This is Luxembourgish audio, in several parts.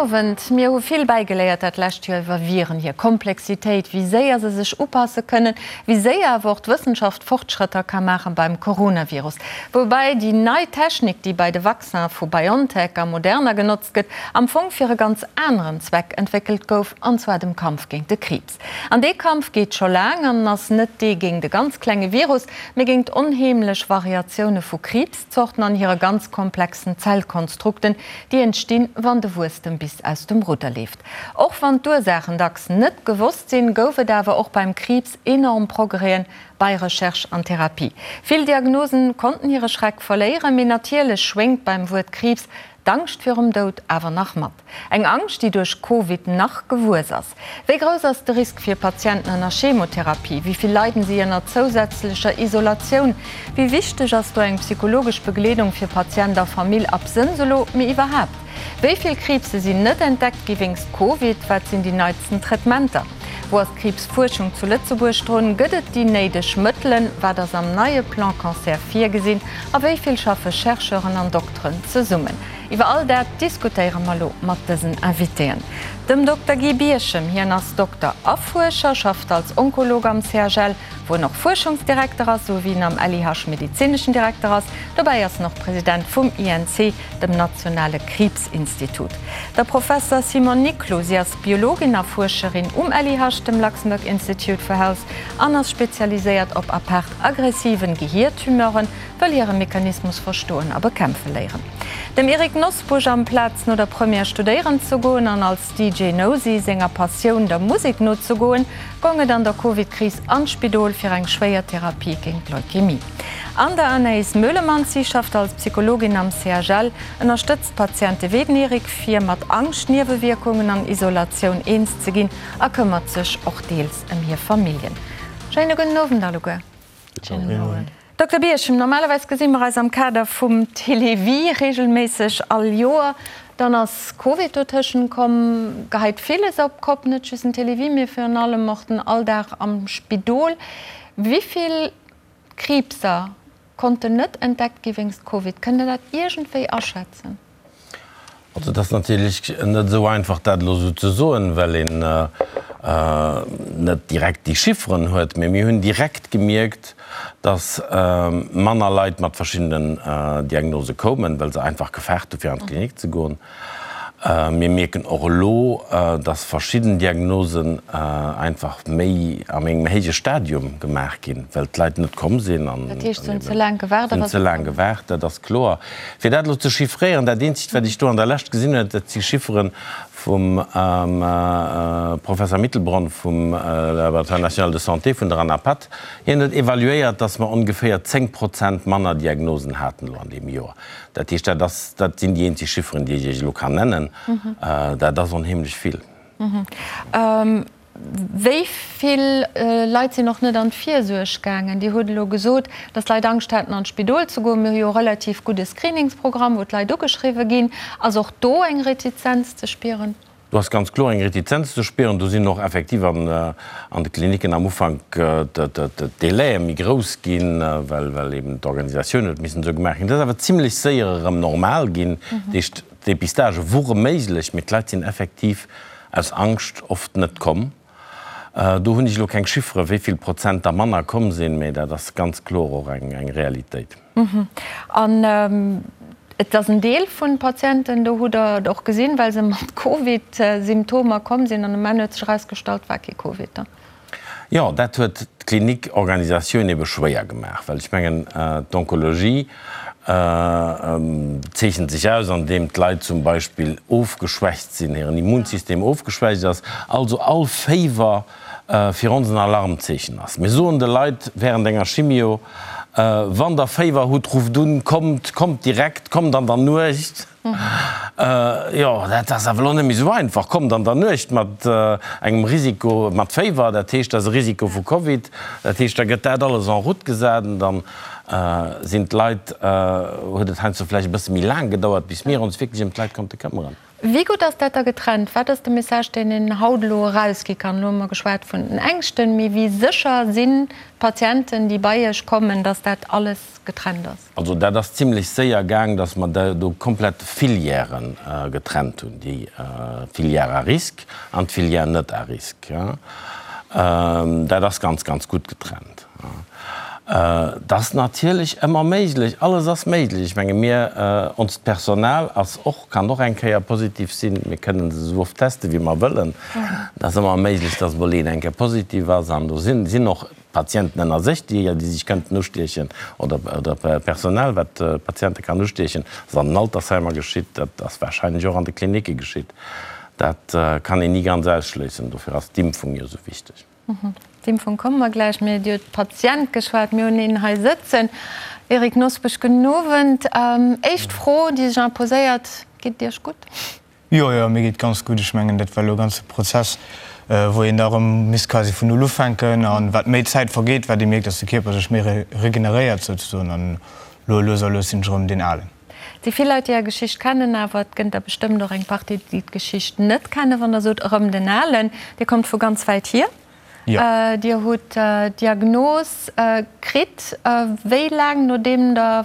Owend. Mir hu vill bäigeléiert dat lescht Joer iwwer Viren, hir Komplexitéit, wéi séier se sech upasse kënnen, wéi séier awer och d'Wëssenschaft Fortschrëtter ka maache beim Coronavirus. Woubäi déi nei Technik, déi bei de Vaccin vu BioNTech a Moderna genotzt gëtt, am Fong fir e ganz aneren Zweck entwéckelt gouf, an zwar dem Kampf géint de Kriibs. An dee Kampf geet scho laang an ass net dee géint e ganz klenge Virus, mee géint onheemlech Variatioune vu Kriibs. Zorten an hire ganz komplexen Zellkonstrukten, déi entstinn, wann de Wuesstem bis aus dem Rudder leeft. Och wann d'Ursaachen dacks net gewosst sinn, gouf et awer och beim Kriibs enorm Progrèsen bei Recherche an Therapie. Vill Diagnosen konnten hire Schreck verléieren, mee natierlech schwéngt beim Wuert Kriibs d'Angscht virum Doud awer nach mat. Eng Angscht, déi duerch Covid nach gewuess ass. Wéi grouss ass de Risk fir Patienten ënner Chemotherapie? Wéi vill leiden si ënner zousätzlecher Isolatioun? Wéi wichteg ass do eng psychologesch Begleedung fir Patient a Famill, absënns elo, mee iwwerhaapt? Wéi vill Kriibse sinn net entdeckt gi wéinst Covid? Wat sinn déi neitsten Traitementer? Wou ass d'Kriibsfuerschung zu Lëtzebuerg drun? Gëtt et déi néideg Mëttelen? Wat ass am neie Plan Cancer virgesinn? A wéi vill schaffe Chercheuren an Dokteren zesummen? Iwwer all dat diskutéiere mer elo mat dësen Invitéen. Dem Dokter Guy Birchem, hien ass Dokter a Fuerscher, schafft als Onkolog am CHL, wou en och Fuerschungsdirekter ass, esou wéi en am LIH medezineschen Direkter ass. Dobäi ass en och President vum INC, dem nationale Kriibsinstitut. Der Professer Simone Niclou, si ass Biologin a Fuerscherin um LIH, dem Luxembourg Institute for Health, an ass spezialiséiert op apaart aggressiven Gehiertumeuren, wëll hire Mechanismus verstoen a bekämpfe léieren. Dem Eric Nosbusch, amplaz no der Première studéieren ze goen an als DJ Nosy senger Passioun, der Musek, nozegoen, gong et an der Covid-Kris an d'Spidol fir eng schwéier Therapie géint Leukämie. An der Anaïs Meulemans, si schafft als Psychologin am CHL, ënnerstëtzt Patiente wéi den Eric, fir mat Angscht, Niewewierkungen an Isolatioun eens ze ginn a këmmert sech och deels ëm hir Familljen. Schéine gudden Owend alleguer. Dokter Birchem, normalerweis gesi mer eis am Kader vum Télévie regelméisseg all Joer. Dann ass Covid dotëschent komm, geheit villes op d'Kopp, net just den Télévie, mee virun allem och den Alldag am Spidol. Wéi vill Kriibser konnten net entdeckt gi wéinst Covid? Kënnt Der dat iergendwéi aschätzen? Also et ass natierlech net esou einfach, dat elo esou ze soen, well een net direkt déi Chifferen huet. Mee mir hunn direkt gemierkt, datt manner Leit mat verschiddenen Diagnose koumen, well se einfach gefaart hu fir an d'Klinik ze goen. Mir mierken och elo, dass verschidden Diagnosen einfach méi am engem héije Stadium gemaach ginn, well d'Leit net komm sinn. Dat heescht, se hunn ze laang gewaart? Se hunn ze laang gewaart, dat ass kloer. Fir dat elo ze chiffréieren, dat eenzegt, wat ech do an der Lescht gesinn hunn, dat si Chiffere vum Professer Mittelbronn vum Laboratoire national de santé vun der ANAPATH. Hien huet evaluéiert, dass mer ongeféier 10 Prozent manner Diagnosen haten elo an deem Joer. Dat heescht, dat ass, dat sinn déi eenzeg Chifferen, déi ech Iech elo kann nennen. Dat ass onheemlech vill. Wéi vill Leit sinn och net an d'Virsuerg gaangen? Dir hutt elo gesot, datt d'Leit Angscht haten, an d'Spidol ze goen. Mir hu jo e relativ gudde Screeningsprogramm, wou d'Leit ugeschriwwe ginn. Ass och do eng Retizenz ze spieren? Do ass ganz kloer eng Retizenz ze spieren. Do sinn och effektiv an de Klinicken am Ufank d'Délaie méi grouss ginn, well eben d'Organisatioun huet missen esou gemaach ginn. Dat ass awer zimlech séier erëm normal ginn. Dat heescht, d'Dépistagë wore méiglech, mee d'Leit sinn effektiv aus Angscht oft net komm. Do hunn ech elo keng Chiffere wéi vill Prozent der manner komm sinn, mee dat ass ganz kloer och eng Realitéit. An et ass en Deel vun Patienten, do hutt Der et och gesinn, well se mat Covid-Symptomer komm sinn an um Enn huet sech erausgestallt, war kee Covid da. Jo, dat huet d'Klinikorganisatioun ebe schwéier gemaach, well ech mengen, d'Onkologie zeechent sech aus, andeem d'Leit zum Beispill ofgeschwächt sinn, hiren Immunsystem ofgeschwächt ass, also all Féiwer fir ons en Alarmzeechen ass. Mir soen de Leit während enger Chimio, Wann der Féiwer hutt, rufft un, kommt, kommt direkt, kommt an der Nuecht. Jo, dat ass awer elo net méi esou einfach. Kommt an der Nuecht mat engem Risiko, mat Féiwer, dat heescht, dat ass e Risiko vu Covid. Dat heescht, da gëtt dat alles en route gesat an dann sinn d'Leit, huet et heiansdo vläicht e bësse méi laang gedauert, bis mir ons wierklech ëm d'Leit konnte këmmeren. Wéi gutt ass dat da getrennt? Wat ass de Message, deen een haut elo erausgi kann? Elo hu mer geschwat vun den Ängschten, mee wéi sécher sinn d'Patienten, déi bei Iech kommen, datt dat alles getrennt ass? Also dat ass zimlech séier gaang, datt mer do komplett Filièren getrennt hunn, déi Filière à risque an d'Filière net à risque. Dat ass ganz, ganz gutt getrennt. Et ass natierlech ëmmer méiglech, alles ass méiglech. Ech menge mir, onst Personal ass och, kann och eng Kéier positiv sinn. Mir kënnen se esou oft teste wéi mer wëllen. Et ass ëmmer méiglech, datt emol een eng Kéier positiv ass an do sinn, sinn och Patienten ënner sech, déi, déi sech kënnten ustiechen oder, oder Personal, wat Patiente kann ustiechen. Dat ass an den Altersheimer geschitt, dat ass warscheinlech och an de Klinicke geschitt. Dat kann een ni ganz ausschléissen. Dofir ass d'Impfung jo esou wichteg. D'Impfung komme mer gläich. Mir hutt iwwer d'Patient geschwat. Mir hunn een hei sëtzen. Eric Nosbusch, gudden Owend. Éischt Fro, déi sech imposéiert, Geet et Iech gutt? Jo, jo, mir geet ganz gutt. Ech mengen, dat war elo e ganze Prozess, wou een da erëm misst quasi vun Null ufänken. A wat méi Zäit vergeet, wat ee mierkt, dass de Kierper sech méi regeneréiert souzesoen. An elo lues a lues sinn ech erëm deen Alen. Et si vill Leit, déi Är Geschicht kennen, awer et gënnt der bestëmmt och eng Partie, déi d'Geschicht net kennen. Wann Der sot, erëm den Alen, Dir kommt vu ganz wäit hier. Dir hutt d'Diagnos kritt, wéi laang nodeem Der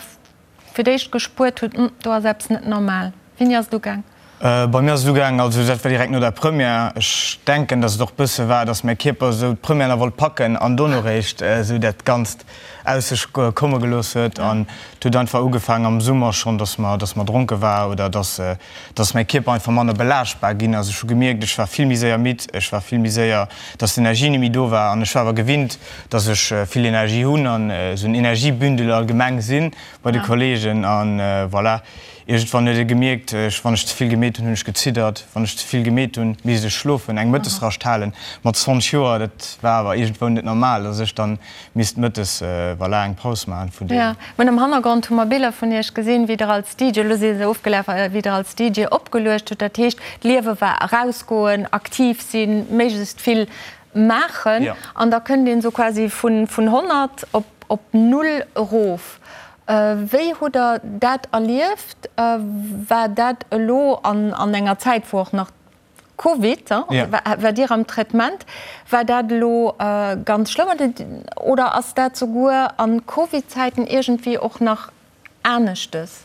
fir d'éischt gespuert hutt, Hm, do ass eppes net normal? Wéini ass et ugaang? Bei mir ass et ugaang, also dat war direkt no der Première. Ech denken, datt et och bësse war, datt mäi Kierper esou d'Première nach wollt packen an dono réischt esou dat Ganzt aus sech komme gelooss huet. An et huet einfach ugefaangen am Summer schonn, datt mer, datt mer dronke war oder datt, datt mäi Kierper einfach manner belaaschtbar ginn ass. Ech hu gemierkt, ech war vill méi séier midd, ech war vill méi séier, datt d'Energie net méi do war. An ech war awer gewinnt, datt ech vill Energie hunn an esou en Energiebündel allgemeng si bei de Kollegen. An voilà. Iergendwann huet e gemierkt, ech, wann ech ze vill gemeet hunn, hunn ech geziddert, wann ech ze vill gemeet hunn, misst ech schlofen, eng Mëttesrascht halen. Mat 20 Joer, dat war awer iergendwou net normal, dass ech dann misst mëttes, voilà, eng Paus maachen vun deem. Jo, mir hunn am Hannergrond hu mer Biller vun Iech gesinn, wéi Der als DJ, elo si se ofgelaf, wéi Der als DJ opgeluecht hutt. Dat heescht, d'Liewe war erausgoen, aktiv sinn, méiglechst vill maachen. An da kënnt een esou quasi vun 100 op null erof. Wéi hutt Der dat erlieft? War dat elo an enger Zäit, wou och nach Covid, war Dir am Traitement, war dat elo ganz schlëmm oder ass dat souguer a Covid-Zäiten iergendwéi och nach aneschtes?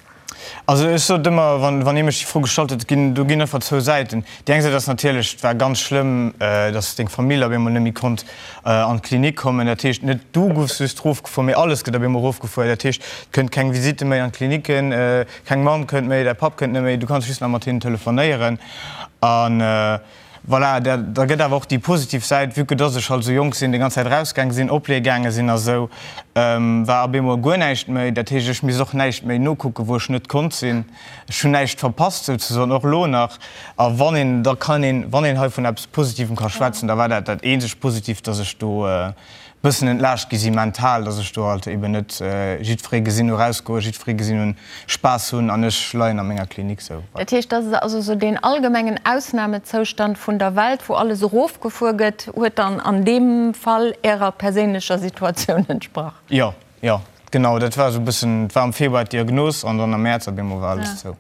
Also ech sot ëmmer, wann ee mech déi Fro gestallt huet, ginn, do ginn einfach zwou Säiten. Déi eng Säit ass natierlech, et war ganz schlëmm, datt deng Famill op eemol net méi konnt an d'Klinik kommen. Dat heescht, net du goufs just erofgefuer, mee alles gëtt op eemol erofgefuer. Dat heescht, et kënnt keng Visitte méi an d'Klinicken, keng Mamm kënnt méi, däi Papp kënnt net méi, du kanns just nach mat hinnen telefonéieren. An Voilà, da gëtt awer och déi positiv Säit, vue que dass ech halt esou jonk sinn, déi ganz Zäit erausgaange sinn, opleeë gaange sinn a sou, war op eemol guer näischt méi. Dat heescht, ech misst och näischt méi nokucken, wou ech net konnt sinn. Ech hunn näischt verpasst souzesoen, och elo nach. A wann een, da kann een, wann een hei vun eppes Positivem ka schwätzen, da war dat dat eenzegt Positivt, dass ech do bëssen entlaascht gi si mental, dass ech do halt eben net jiddweree gesinn hu rausgoen, jiddweree gesinn hunn Spaass hunn an ech leien a menger Klinik sou. Dat heescht, dat ass also sou deen allgemengen Ausnamezoustand vun der Welt, wou alles erofgefuer gëtt, huet dann an deem Fall Ärer perséinlecher Situatioun entsprach? Jo, jo, genau, dat war sou e bëssen, et war am Februar d'Diagnos an dann am Mäerz op eemol war alles zou.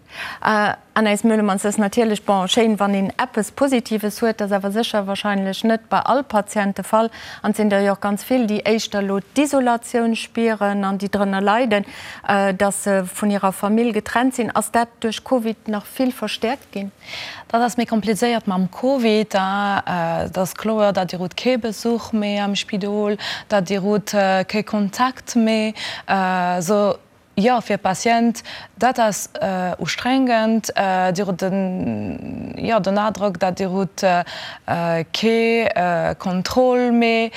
Anaïs Meulemans, Et ass natierlech, bon, schéin, wann een eppes Positives huet, dat ass awer sécher wahrscheinlech net bei all Patient de Fall. An et sinn der jo och ganz vill, déi éischter elo d'Isolatioun spieren an déi drënner leiden, dass se vun hirer Famill getrennt sinn. Ass dat duerch Covid nach vill verstäerkt ginn? Dat ass méi komplizéiert mam Covid. Et ass kloer, datt Dir hutt kee Besuch méi am Spidol, datt Dir hutt kee Kontakt méi. Esou Jo, fir Patient, dat ass ustrengend. Dir hutt den, jo, den Adrock, datt Dir hutt kee Contrôle méi.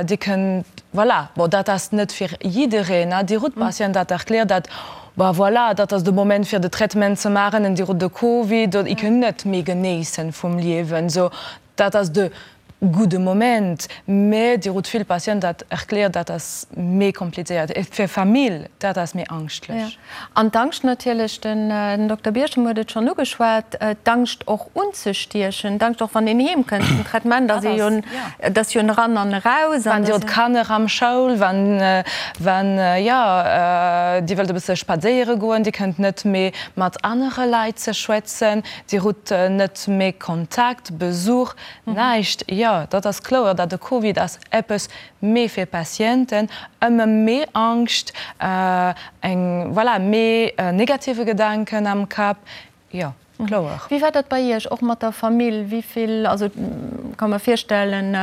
Dir kënnt, voilà, bon, dat ass net fir jiddereen, Dir hutt Patient, dat erkläert, dat, bah, voilà, dat ass de Moment fir de Traitement ze maachen en Dir hutt de Covid, I kënnt net méi genéissen vum Liewen. Sou, dat ass de. gudde Moment, mä Dir hutt vill Patienten, dat erkläert, dat ass méi komplizéiert. Et fir Famill, dat ass méi angschtlech. An d'Angscht natierlech, den Dokter Birchem huet et schonn ugeschwat, d'Angscht och unzestiechen, d'Angscht och wann een heem kënnt vum Traitement, ass ee jo, et ass jo en eran an eraus. Wann Dir hutt Kanner am Schoul, wann, wann, jo, Dir wëllt e bësse spadséiere goen, Dir kënnt net méi mat anere Leit ze schwätzen, Dir hutt net méi Kontakt, Besuch, näischt. Jo, dat ass kloer, dat de Covid ass eppes méi fir Patienten, ëmmer méi Angscht, eng, voilà, méi negative Gedanken am Kapp, jo, kloer. Wéi war dat bei Iech, och mat der Famill? Wéi vill, also ka mer virstellen,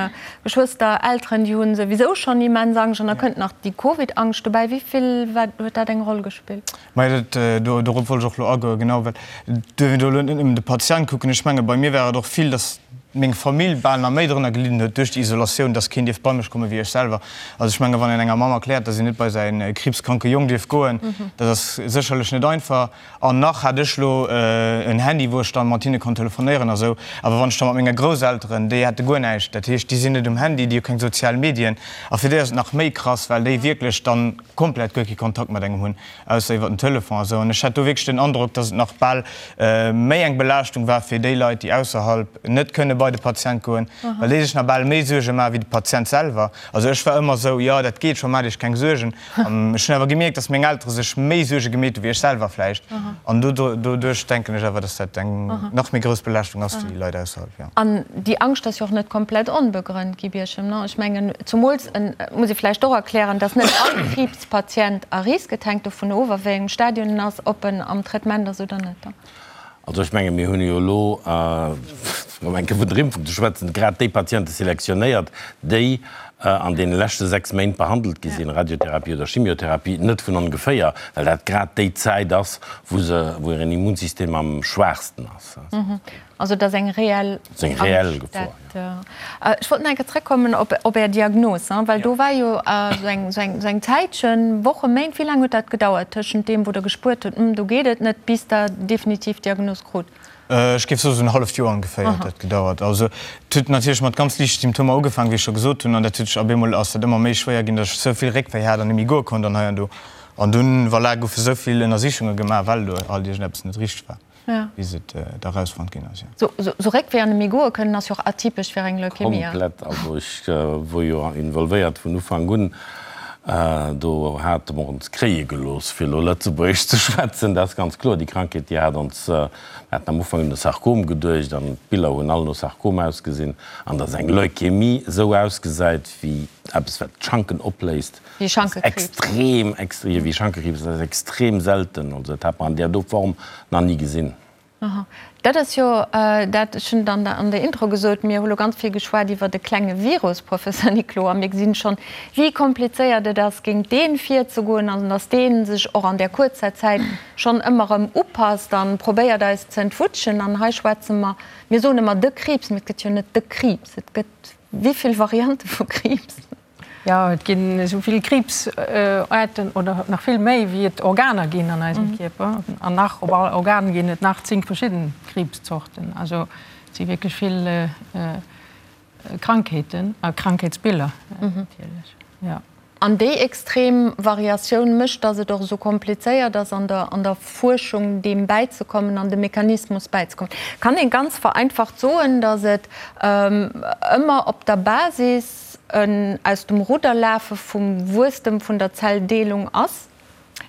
Geschwëster, Elteren, déi hu souwisou schonn immens Angscht an da kënnt nach déi Covid-Angscht dobäi. Wéi vill war, huet dat eng Roll gespillt? Majo, dat, dorop wollt ech och elo agoen, genau, well duerf een do elo net nëmmen de Patient kucken. Ech menge bei mir war et och vill, datt meng Famill bal nach méi drënner gelidden huet duerch déi Isolatioun, datt keen dierf bei mech komme wéi ech selwer. Also ech menge wann een enger Mamm erkläert, datt een net bei säi kriibskranke Jong dierf goen, dat ass sécherlech net einfach. An nach hat ech elo en Handy, wou ech dann mat hinne konnt telefonéieren a sou. Awer wann ech da mat menge Grousselteren, déi hätte guer näischt, dat heescht, déi sinn net um Handy, déi hu keng sozial Medien. A fir déi ass et nach méi krass, well déi wierklech dann komplett guer kee Kontakt mat engem hunn, ausser iwwer den Telefon a sou. An ech hat do wierklech den Androck, dass et nach bal méi eng Belaaschtung war fir déi Leit, déi ausserhalb net kënne bei de Patient goen, well déi sech nach bal méi Suerge maache wéi de Patient selwer. Also ech war ëmmer sou, jo, dat geet scho, maacht Iech keng Suergen. An ech hunn awer gemierkt, dass meng Eltere sech méi Suerge gemeet hu wéi ech selwer vläicht. An doduerch denken ech awer, dass dat eng nach méi grouss Belaaschtung ass fir déi Leit ausserhalb, jo. An déi Angscht ass jo och net komplett onbegrënnt, Guy Birchem, non? Ech mengen, zumools, muss ee vläicht och erklären, dass net all Kriibspatient à risque, et hänkt dovun of, a wéi engem Stadion en ass, ob en am Traitement ass oder net. Also ech menge mir hunn jo elo, fir erëm eng Kéier vun der Impfung ze schwätzen, grad déi Patiente selektionéiert, déi an deene leschte 6 Méint behandelt gi sinn, Radiotherapie oder Chimiotherapie, net vun ongeféier, well dat grad déi Zäit ass, wou se, wou hiren Immunsystem am schwaachsten ass. Also et ass eng reell Angscht, dat. Ech wollt nach eng Kéier zrëckkommen op Är Diagnos, well do war jo esou eng Zäitchen, Wochen, Méint, wéi laang huet dat gedauert tëschent deem, wou Der gespuert hutt, do geet et net, bis Der definitiv d'Diagnos krut? Ech géif soen, esou en halleft Joer ongeféier huet dat gedauert. Also et huet natierlech mat ganz liichte Symptomer ugefaangen, wéi ech scho gesot hunn, an dat huet sech ab eemol ass dat ëmmer méi schwéier ginn, datt ech esou vill Réckwéi hat an net méi goe konnt an hei an do. An dunn, voilà, goufe esou vill Ënnersichunge gemaach, well do halt iergendeppes net richteg war. bis et da rausfonnt ginn ass, jo. Sou Réckwéi an net méi goe kënnen ass jo och atypesch fir eng Leukämie. Komplett, also ech wor jo involvéiert vun Ufank un, do hate mer ons kréie gelooss, fir elo Lëtzebuergesch ze schwätzen, dat ass ganz kloer. Déi Krankheet, déi hat ons, mir haten am Ufank un e Sarkom geduecht an d'Biller hunn all no Sarkom ausgesinn, an datt eng Leukämie esou ausgesäit wéi eppes wat d'Schanken opléist, Wéi Schankekriibs. Extrem, extrem, wéi Schankekriibs, dat ass extrem selten. Also dat hat mer an där do Form nach ni gesinn. Aha. Dat ass jo dat, ech hunn et an der, an der Intro gesot, mir hu lo ganz vill geschwat iwwert e klenge Virus, Professor Niclou, a mir gesinn schonn, wéi komplizéiert et ass, géint dee virzegoen an dass dee sech och an där kuerzer Zäit schonn ëmmer erëm upasst a probéiert eis ze entwutschen. An hei schwätze mer, mir soen ëmmer de Kriibs, mee et gëtt jo net de Kriibs, et gëtt wéi vill Variante vu Kriibs? Jo, et ginn esou vill Kriibsaarten oder nach vill méi, wéi et Organer ginn an eisem Kierper. An nach op all Organ ginn et nach 10 verschidden Kriibszorten. Also et si wierklech vill Krankheeten a Krankheetsbiller natierlech, jo. An déi extrem Variatioun mécht, datt et och esou komplizéiert ass an der an der Fuerschung deem bäizekommen an dem Mechanismus bäizekommen. Kann ee ganz vereinfacht soen, datt et ëmmer op der Basis en aus dem Rudder lafe vum Wuesstem vun der Zelldeelung ass?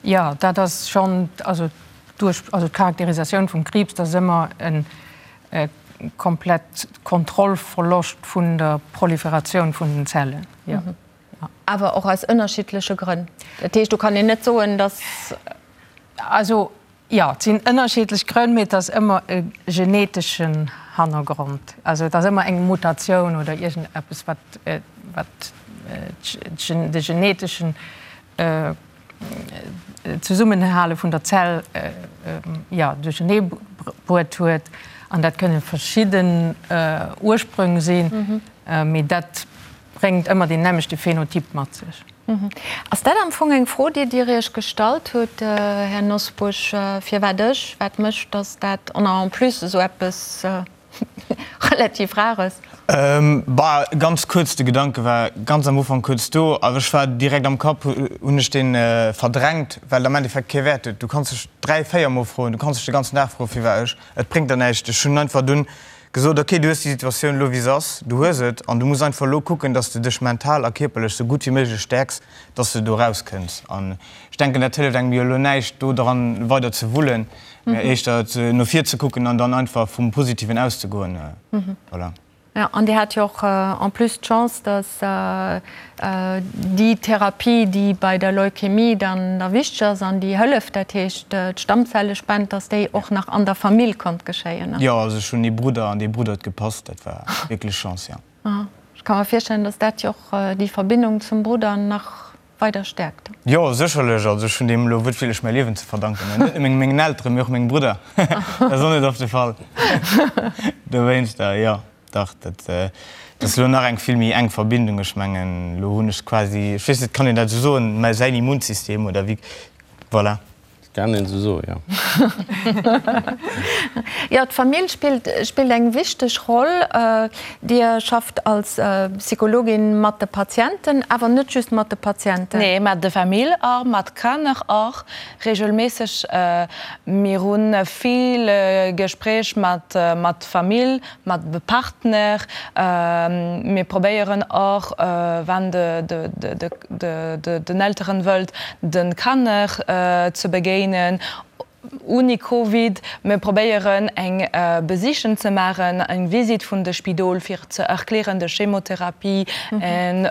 Jo, dat ass schonn, also duerch, also d'Charakterisatioun vum Kriibs, dat ass ëmmer e komplett Kontrollverloscht vun der Proliferatioun vun den Zellen, jo. Awer och aus ënnerschiddleche Grënn. Dat heescht, do kann een net soen, datt. Also Jo, et sinn ënnerschiddlech Grënn, mee et ass ëmmer e geneteschen Hannergrond. Also et ass ëmmer eng Mutatioun oder iergendeppes, wat wat de geneteschen Zesummenhale vun der Zell, jo, duerchernee bruet huet. An dat kënne verschidden Ursprünge sinn, mee dat bréngt ëmmer deen nämmlechte Phänotyp mat sech. Ass dat am Fong eng Fro, déi Dir Iech gestallt hutt, Här Nosbusch, firwat ech, wat mécht, datt dat, an en plus esou eppes. relativ rar ass. Bah, ganz kuerz, de Gedanke war ganz am Ufank kuerz do, awer ech war direkt am Kapp hunn ech dee verdrängt, well et am Endeffekt kee Wäert huet. Du kanns dech 3, 4 mol froen, du kanns dech de ganzen Dag froen, firwat ech, et bréngt der näischt. Ech hunn einfach dunn gesot, ok, du hues déi Situatioun elo wéi se ass, du hues et an du muss einfach elo kucken, dass de dech mental a kierperlech sou gutt wéi méiglech stäerks, dass de do rauskënns. An ech denken, dat hëlleft engem jo elo näischt, do dran weider ze wullen, mä éischter no vir ze kucken an dann einfach vum Positiven auszegoen. Voilà. Jo, an Dir hat jo och en plus d'Chance, dass déi Therapie, déi bei der Leukämie dann da wichteg ass an déi hëlleft, dat heescht d'Stammzellespend, dass déi och nach an der Famill konnt geschéien. Jo, also ech hunn ee Brudder an dee Brudder huet gepasst. Dat war wierklech Chance, jo. Ech ka mer virstellen, dass dat jo och déi Verbindung zum Brudder nach weider stäerkt. Jo, sécherlech. Also ech hunn deem elo wuertwiertlech mäi Liewen ze verdanken. Net nëmme mengen Elteren, mee och mengem Brudder. Dat ass och net oft de Fall. Dowéinster, jo, dach, dat ass elo nach eng vill méi enk Verbindung. Ech mengen, elo hunn ech quasi, ech weess net, kann een dat esou soen, mä säin Immunsystem oder wéi, voilà. Kann een esou soen, jo. Jo, d'Famill spillt spillt eng wichteg Roll. Dir schafft als Psychologin mat de Patienten, awer net just mat de Patienten. Nee, mat de Famill och, mat Kanner och regelméisseg. Mir hu vill Gespréich mat mat Famill, mat de Partner. Mir probéieren och, wann de den Elteren wëllt, de Kanner ze begéinen ouni Covid. Mir probéieren eng Besichen ze maachen, eng Visite vun de Spidol fir ze erklären de Chemotherapie en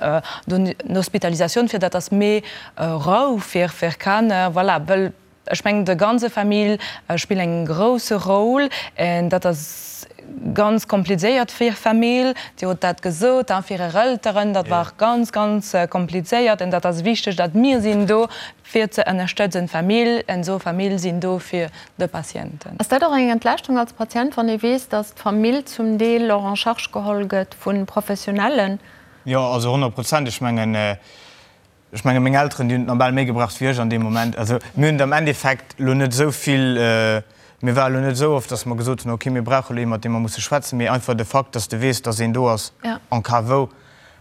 d'Hospitalisatioun, fir dat ass méi Rou fir Kanner. Voilà, wëll Ech mengen de ganze Famill spillt eng grousse Rôle en dat ass ganz komplizéiert fir Famill. Dir hutt dat gesot a fir Är Elteren, dat war ganz ganz komplizéiert en dat ass wichteg dat mir sinn do fir ze ënnerstëtzen d'Famill en esou Famill sinn do fir de Patienten. Ass dat och eng Entlaaschtung als Patient, wann ee weess, datt d'Famill zum Deel och en charge geholl gëtt vu Professionellen? Jo, also 100 Prozent. Ech mengen, Ech menge meng Elteren, déi hunn et nach bal méi gebraucht wéi ech an deem Moment. Also mir hunn et am Endeffekt elo net esou vill, mir ware elo net esou oft, datt mer gesot hunn, okay, mir brauche elo ee mat deem mer musse schwätzen, mee einfach de Fakt, datt s de weess, datt een do ass en cas wou,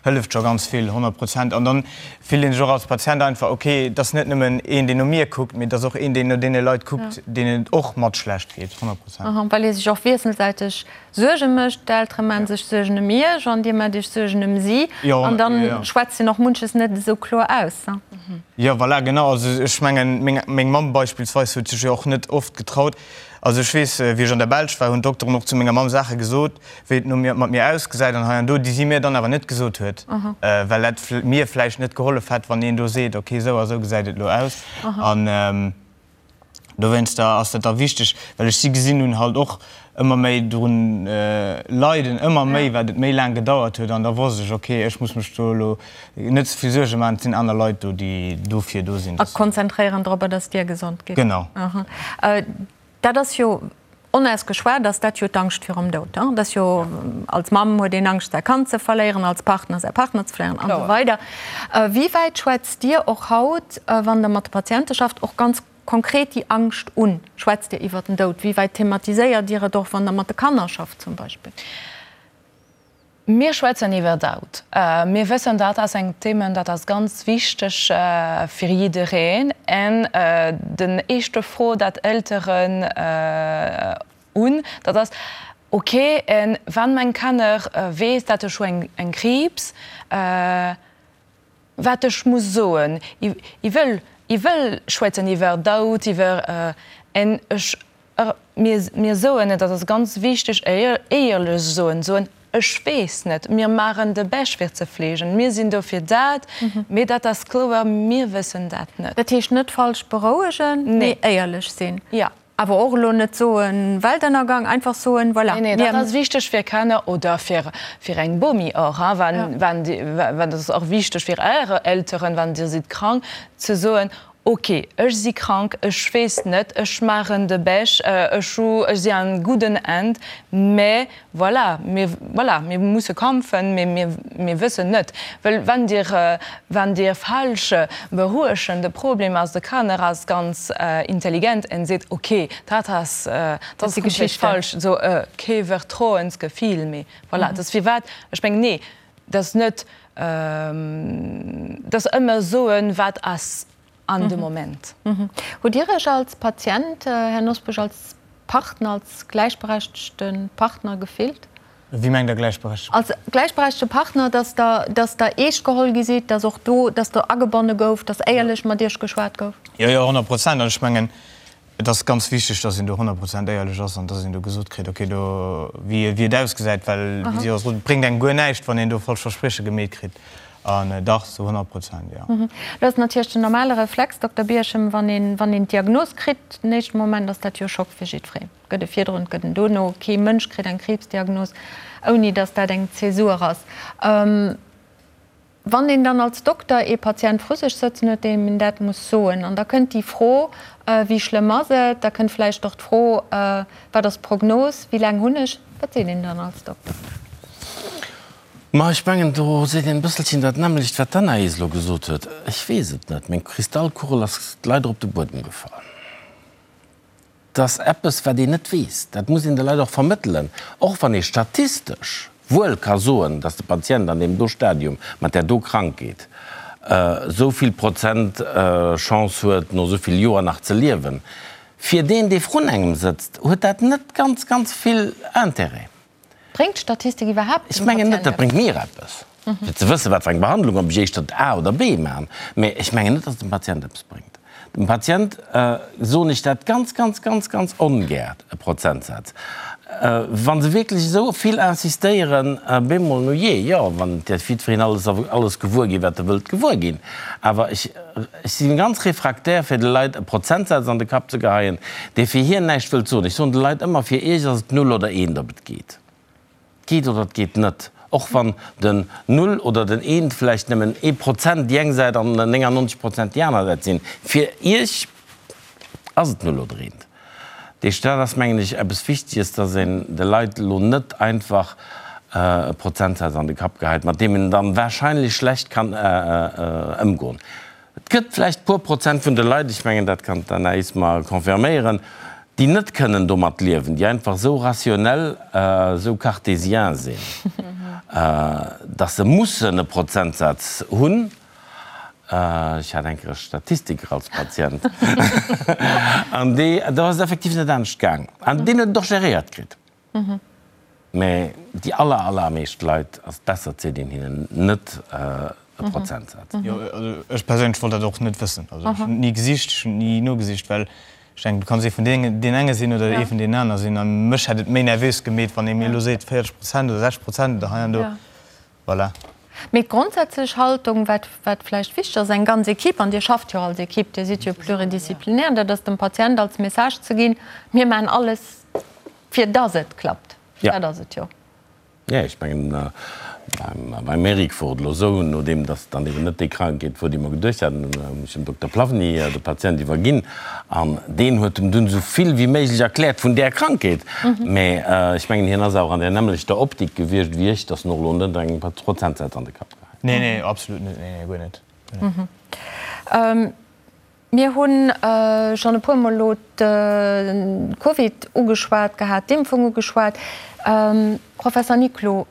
hëlleft scho ganz vill, 100 Prozent. An dann fillt ee sech och als Patient einfach, okay, et ass net nëmmen een, deen no mir kuckt, mee et ass och een, deen no deene Leit kuckt, deenen et och mat schlecht geet, 100 Prozent. Well ee sech och wiesselsäiteg Suerge mécht, d'Eltere maan sech Suergen ëm iech an dir maacht iech Suergen ëm si an dann schwätzt een och munches net esou kloer aus. Jo, voilà, genau. Also ech mengen, meng, meng Mamm beispillsweis huet sech jo och net oft getraut. Also ech weess, wéi ech an der Belsch war, hunn d'Dokteren och zu menger Mamm Saache gesot, wéi et no mir, mat mir ausgesäit an hei an do, déi si mir dann awer net gesot huet, well dat mir vläicht net gehollef hätt, wann een do seet, okay, esou a esou gesäit et elo aus. An. Dowéinster ass dat da wichteg, well ech si gesinn hunn halt och ëmmer méi drun leiden, ëmmer méi, wat et méi laang gedauert huet. An da wosst ech, okay, ech muss mech do elo net ze vill Suerge maachen, et sinn aner Leit do, déi dofir do sinn. A konzentréieren dorobber, dass dir gesond gitt. Genau. Dat ass jo onausgeschwat, ass dat jo d'Angscht virum Doud. Dat ass jo, als Mamm huet een Angscht säi Kand ze verléieren, als Partner säi Partner ze verléieren an esou weider. Wéi wäit schwätzt Dir och haut, wann Der mat de Patiente schafft, och ganz konkret déi Angscht un? Schwätzt Dir iwwer den Doud? Wéi wäit thematiséiert Dir et och, wann Der mat de Kanner schafft zum Beispill? Mir schwätzen iwwer Doud. Mir wëssen, dat ass eng Thema, dat ass ganz wichteg fir jiddereen. En den éischte Fro, dat Elteren hunn, dat ass, Ok, en wann meng Kanner weess, dat ech hu eng Kriibs, wat ech muss soen? I wëll, i wëll schwätzen iwwer Doud, iwwer en ech Mir, mir soen, et ass ganz wichteg, éierlech soen, soen, ech weess net, mir maachen de Bescht fir ze fleegen, mir sinn do fir dat, mee dat ass kloer, mir wëssen dat net. Dat heescht net falsch berouegen, mee éierlech sinn. Jo. Awer och elo net soen, Weltënnergang, einfach soen, voilà, mir. Nee, nee, dat ass wichteg fir Kanner oder fir, fir eng Bomi och, hein, wann, wann, dat ass och wichteg fir Är Elteren, wann Dir sidd krank, ze soen,. Ok, ech si krank, ech weess net, ech maachen de Bech, ech hu, ech si an gudden Hänn, mä voilà, mir, voilà, mir musse kampfen, mä mir, mir wëssen net, well wann Dir, wann Dir falsch beruechen, de Problem ass, de Kanner ass ganz intelligent en seet, ok, dat ass, dat ass komplett falsch, esou kee Vertrauensgefill méi, voilà, dat ass firwat ech mengen, nee, Dat ass net, dat ass ëmmer soen, wat ass an de Moment. Hutt Dir Iech als Patient, Här Nosbusch, als Partner, als gläichberechtegte Partner gefillt? Wéi mengt Der gläichberechtegte Partner? Als gläichberechtegte Partner, dass Der, dass Der eescht geholl gi sidd, dass och do, dass do agebonne gouf, dass éierlech mat Iech geschwat gouf? Jo, jo, 100 Prozent. An ech mengen, Et ass ganz wichteg, dass een do 100 Prozent éierlech ass an dass een do gesot kritt, okay, do, wéi et ausgesäit, well, wéi si och sot, et bréngt engem guer näischt, wann een do falsch Versprieche gemeet kritt. An dach, zu 100 Prozent, jo. Lo ass natierlech den normale Reflex, Dokter Bierchem, wann een, wann een d'Diagnos kritt, den éischte Moment ass dat jo Schock fir jiddwereen. Et gëtt e virdrun, et gëtt en dono. Kee Mënsch kritt eng Kriibsdiagnos, ouni dass dat eng Zäsur ass. Wann een dann als Dokter ee Patient vru sech sëtzen huet, deem een dat muss soen, an da kënnt déi Fro, Wéi schlëmm ass et? Da kënnt vläicht och d'Fro, Wat ass d'Prognos? Wéi laang hunn ech? Wat seet een dann als Dokter? Ma ech mengen, do seet een e bësselchen dat nämmlecht, wat d'Anaïs elo gesot huet. Ech weess et net. Meng Kristallkugel ass leider op de Buedem gefall. 't ass eppes, wat een net weess. Dat muss een de Leit och vermëttelen, och wann ee statistesch wuel ka soen, dass de Patient an deem do Stadium mat där do Krankheet esou vill Prozent Chance huet, no esou vill Joer nach ze liewen. Fir deen, dee vrun engem sëtzt, huet dat net ganz, ganz vill Intérêt. Bréngt d'Statistik iwwerhaapt Ech mengen net, dat bréngt mir eppes, fir ze wëssen, wat fir eng Behandlung, ob ech éischter A oder B maachen. Mä ech mengen net, datt et dem Patient eppes bréngt. Dem Patient soen ech dat ganz, ganz, ganz, ganz ongär, e Prozentsaz. Wa se wierklech esou vill insistéieren, bemol, no jee, jo, wann et jiddwereen alles, alles gewuer ginn, wat e wëllt gewuer ginn. Awer ech, ech si ganz refraktär, fir de Leit e Prozentsaz an de Kapp ze geheien, dee fir hien näischt wëllt soen. Ech soen de Leit ëmmer, fir iech ass et null oder eent, ob et geet. Et geet oder et geet net. Och wann den Null oder den Eent vläicht nëmmen ee Prozent déi eng Säit an 99 Prozent déi aner Säit sinn, fir iech ass et null oder eent. Deesch, dat ass, mengen ech, eppes Wichteges, dass een de Leit elo net einfach e Prozentsaz an de Kapp geheit, mat deem een dann wahrscheinlech schlecht kann ëmgoen. Et gëtt vläicht puer Prozent vun de Leit, ech mengen, dat kann d'Anaïs mer confirméieren, déi net kënnen domat liewen, déi einfach esou rationnel, esou cartésien sinn, dass se mussen e Prozentsaz hunn. Ech hat eng Kéier e Statistiker als Patient an dee, do ass et effektiv net anescht gaang. An deen huet et och geréiert kritt. Mä déi aller, allermeescht Leit ass et besser, et seet een hinnen net e Prozentsaz. Jo, also ech perséinlech wollt dat och net wëssen. Also ech hunn et ni gesicht, ech hunn et ni nogesicht, well ech denken, du kanns ee vun deenen enge sinn oder ee vun deenen aner sinn. A mech hätt et méi nervös gemeet, wann ee mir elo seet 40 Prozent oder 60 Prozent oder hei an do. Voilà. Mee d'grondsätzlech Haltung, wat, wat vläicht wichteg ass, eng ganz Equipe, an Dir schafft jo als Equipe, Dir sidd jo pluridisciplinaire, dat ass dem Patient als Message ze ginn, Mir maachen alles, fir dass et klappt. Dat ass et jo. Jo, ech mengen, beim Eric wor et elo esou, nodeem dass et dann eben net déi Krankheet wor, déi mer geduecht haten, hunn ech dem Dokter Plavny de Patient iwwerginn an deen huet em dunn esou vill wéi méiglech erkläert vun där Krankheet. Mä ech mengen, hien ass awer an där nämmlechter Optik gewiescht wéi ech, dass en och elo net engem Prozentsaz an de Kapp geheit huet. Nee, nee, absolut net, nee, nee, guer net. Mir hu schonn e puermol elo de Covid ugeschwat gehat, d'Impfung ugeschwat. Professor Niclou,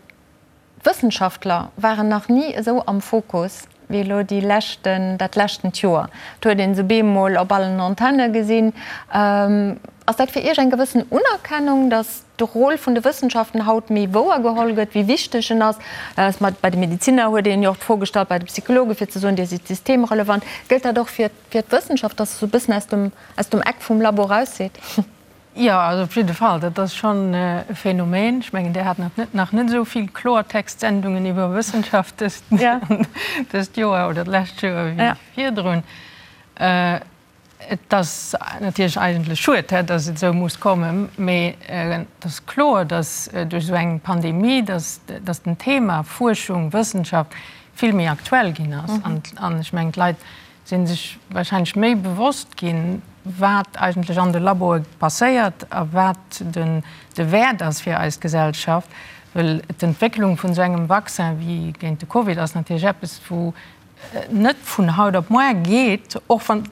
d'Wëssenschaftler waren nach ni esou am Fokus wéi elo déi leschten, dat leschtent Joer. Et huet ee se bemol op allen Antenne gesinn. Ass dat fir Iech eng gewëssen Unerkennung, datt de Rôle vun de Wëssenschaften haut méi wouer geholl gëtt, wéi wichteg en ass. Bei de Medeziner huet een jo och d'Fro gestallt, bei de Psychologen, fir ze soen, Dir sidd systemrelevant. Gëllt dat och fir d'Wëssenschaft, dass se esou e bëssen aus dem, aus dem Eck vum Labo raus sidd? Jo, also op jidde Fall, dat ass schonn e Phänomen. Ech mengen, Dir hat nach net, nach net esou vill Kloertext-Sendungen iwwer Wëssenschaft dëst, dëst Joer oder d'lescht Joer wéi virdrun. Et ass natierlech eigentlech schued, datt et esou muss kommen, mee et ass kloer, datt duerch esou eng Pandemie, datt den Thema Fuerschung, Wëssenschaft vill méi aktuell ginn ass. An ech mengen, d'Leit Si sech wahrscheinlech méi bewosst ginn, wat eigentlech an de Laboe passéiert a wat den de Wäert ass fir eis Gesellschaft. Well d'Entwécklung vun esou engem Vaccin wéi géint de Covid ass natierlech eppes, wou net vun haut op moar geet, och wann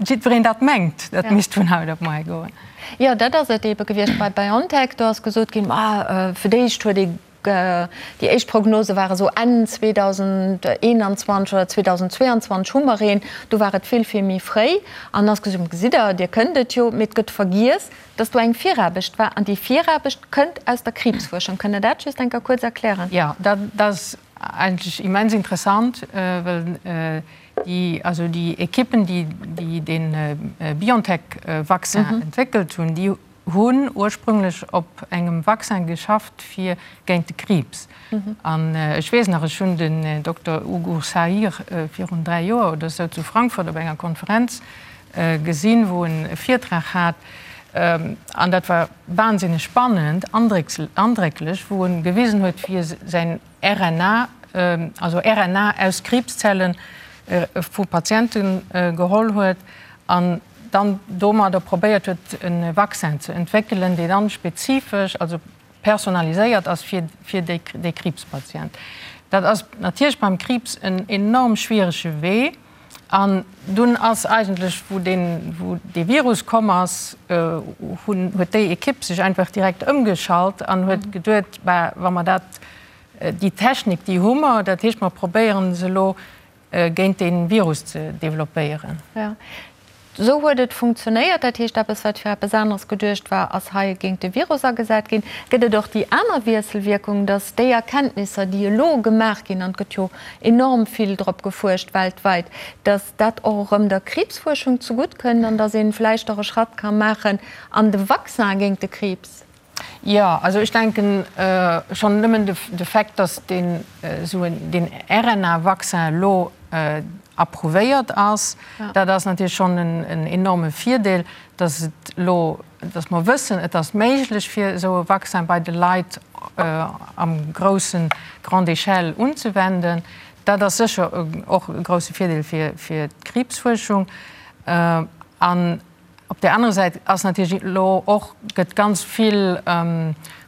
jiddwereen dat mengt, dat misst vun haut op moar goen. Jo, dat ass et eebe gewiescht bei BioNTech. Do ass gesot ginn, ma fir d'éischt huet ee Déi éischt Prognose ware sou Enn 2021 oder 2022 hu mer een. Do war et vill, vill méi fréi. An ass gesot ginn, gesitt Der, Dir kënnt et jo. Mee et gëtt vergiess, dass do eng Viraarbecht war. An déi Viraarbecht kënnt aus der Kriibsfuerschung. Kënnt Der dat just eng Kéier kuerz erklären? Jo, dat ass eigentlech immens interessant, well déi, also déi Ekippen, déi dee BioNTech-Vaccin entwéckelt hunn, déi hunn ursprünglech op engem Vaccin geschafft fir géint de Kriibs. An ech weess nach, ech hunn den Dokter Ugur Sahir virun 3 Joer oder esou zu Frankfurt op enger Konferenz gesinn, wou en e Virtrag hat, an dat war wahnsinneg spannend, andrécklech, wou en gewisen huet, wéi e säin RNA, also RNA aus Kriibszelle vu Patiente geholl huet an dann domadder probéiert huet e Vaccin ze entwéckelen, deen dann spezifesch, also personaliséiert ass fir fir dee Kriibspatient. Dat ass natierlech beim Kriibs en enorm schwierege Wee. An dunn ass eigentlech, wou deen, wou dee Virus komm ass, hunn, huet déi Ekipp sech einfach direkt ëmgeschalt an huet geduet, bah, wa mer dat, déi Technik, déi hu mer, dat heescht, mer probéieren se elo géint dee Virus ze developpéieren. Jo, esou huet et funktionéiert. Dat heescht, eppes, wat fir eppes aneres geduecht war, ass hei géint de Virus agesat ginn. Gëtt et och déi aner Wiesselwierkung, datt déi Erkenntnisser, déi elo gemaach ginn, an et gëtt jo enorm vill drop gefuerscht weltweit, datt dat och erëm der Kriibsfuerschung zegutt kënnt an datt ee vläicht och e Schratt ka maachen an de Vaccin géint de Kriibs? Jo, also ech denken schonn nëmmen de Fait, datt deen esou en, deen RNA-Vaccin elo approuvéiert ass, dat ass natierlech schonn en enorme Virdeel, datt et elo, datt mer wëssen, et ass méiglech fir esou e Vaccin bei de Leit am groussen, grande échelle unzewenden. Dat ass sécher och e grousse Virdeel fir d'Kriibsfuerschung. An Op där anerer Säit ass natierlech elo och, gëtt ganz vill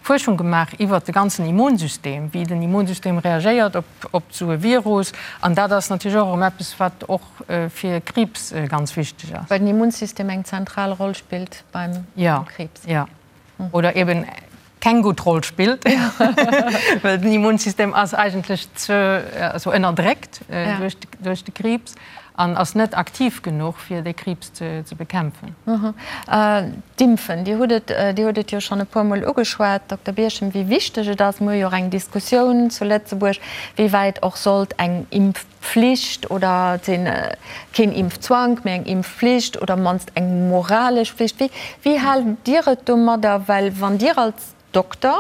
Fuerschung gemaach iwwert de ganzen Immunsystem, wéi den Immunsystem reagéiert op esou e Virus. An dat ass natierlech och erëm eppes, wat och fir Kriibs ganz wichteg ass. Well den Immunsystem eng zentral Roll spillt beim Kriibs. Jo, oder eben keng gutt Roll spillt, well den Immunsystem ass eigentlech ze, also ënnerdréckt duerch de Kriibs an ass net aktiv genuch, fir dee Kriibs ze bekämpfen. D'Impfen, Dir hutt et, Dir hutt et jo schonn e puermol ugeschwat, Dokter Birchen, wéi wichteg et ass. Mir hu jo och eng Diskussioun zu Lëtzebuerg, wéi wäit och sollt eng Impfpflicht oder keen Impfzwank, mee eng Impfpflicht oder mannst eng moralesch Pflicht. Wéi, wéi haalt Dir et domadder? Well wann Dir als Dokter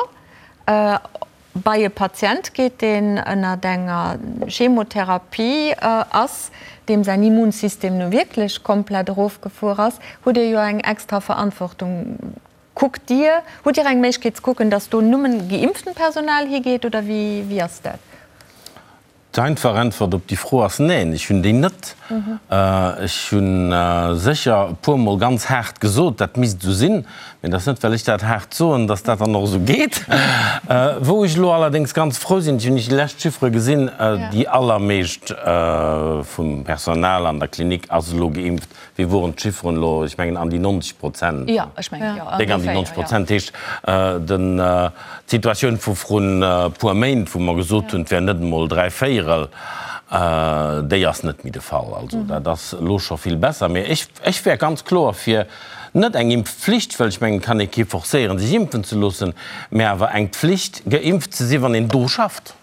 bei e Patient geet, deen ënnert enger Chemotherapie ass, deem säin Immunsystem nu wierklech komplett erofgefuer ass, hutt Dir jo eng extra Verantwortung. Kuckt Dir, hutt Dir eng Méiglechkeet ze kucken, datt do nëmmen geimpftent Personal higeet oder wéi, wéi ass dat? D'einfach Äntwert op déi Fro ass Neen, ech hunn déi net. Ech hu sécher e puermol ganz haart gesot, dat misst esou sinn, mee et ass net, well ech dat haart soen, datt dat dann och esou geet. Wou ech elo allerdéngs ganz frou sinn, ech hunn déi lescht Chiffere gesinn, déi allermeescht vum Personal an der Klinik ass elo geimpft. Wéi woren d'Chifferen elo? Ech mengen an déi 90 Prozent. Jo, ech mengen, jo, Déck an déi 90 Prozent. Heescht, den, d'Situatioun vu vrun e puer Méint, wou mer gesot hunn, et wär net emol dräivéierel, déi ass net méi de Fall. Also dat ass elo scho vill besser. Mee ech, ech wär ganz kloer fir net eng Impfpflicht, well ech mengen, et kann ee kee forcéieren, sech impfen ze loossen, mä awer eng Pflicht, geimpft ze sinn, wann een do schafft.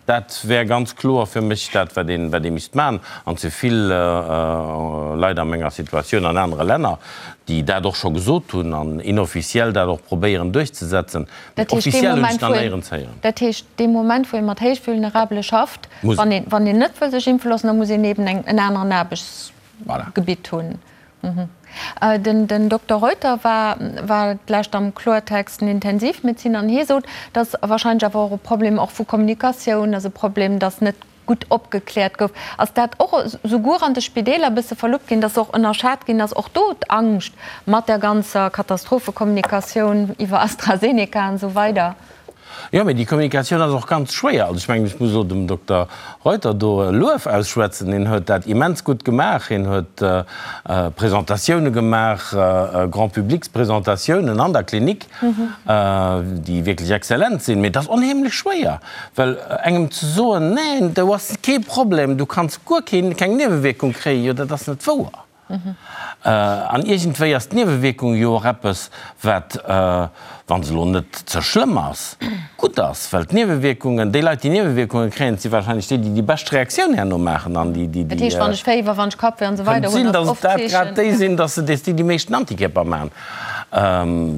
Dat wär ganz kloer fir mech dat, wat een, wat ee misst maachen. An ze vill Leit a menger Situatioun an anere Länner, déi dat och scho gesot hunn an inofficiell dat och probéieren duerchzesetzen. Mee officiell hunn ech nach néierens héieren. Dat heescht, dee Moment, wou ee mat Héichvulnerabele schafft, wann een, wann een net wëll sech impfe loossen, da muss een eben eng, en aneren Aarbechtsgebitt hunn. Den Dokter Reuter war war d'lescht am Kloertext den Intensivmedeziner an hie sot, dass wahrscheinlech awer och e Problem och vu Kommunikatioun ass, e Problem, dass net. gutt opgekläert gouf. Ass dat och souguer an de Spideeler e bësse verluppt ginn, dass och ënnerschat ginn ass, och do d'Angscht mat der ganzer Katastrophekommunikatioun iwwer AstraZeneca an esou weider? Jo, mee déi Kommunikatioun ass och ganz schwéier. Also ech mengen, ech muss elo dem Dokter Reuter do e Luef ausschwätzen. Hien huet dat immens gutt gemaach. Hien huet Presentatioune gemaach, Grand-publics-Presentatiounen an der Klinik, déi wierklech exzellent sinn. Mee et ass onheemlech schwéier, well engem ze soen, Neen, do ass kee Problem, du kanns guer keen, keng Niewewierkung kréien, jo dat ass net wouer. An iergendwéi ass d'Niewewierkung jo och eppes, wat, wa se elo net ze schlëmm ass, gutt ass. Well d'Niewewierkungen, déi Leit, déi Niewewierkunge kréien, dat si warscheinlech déi, déi déi bescht Reaktioun herno maachen an déi, déi, Dat heescht, wann ech Féiwer, wann ech Kappwéi an esou weider hunn, ass oft d'Zeechen. Kënnt sinn, datt et dat grad déi sinn, datt se déi déi meeschten Antikierper maachen.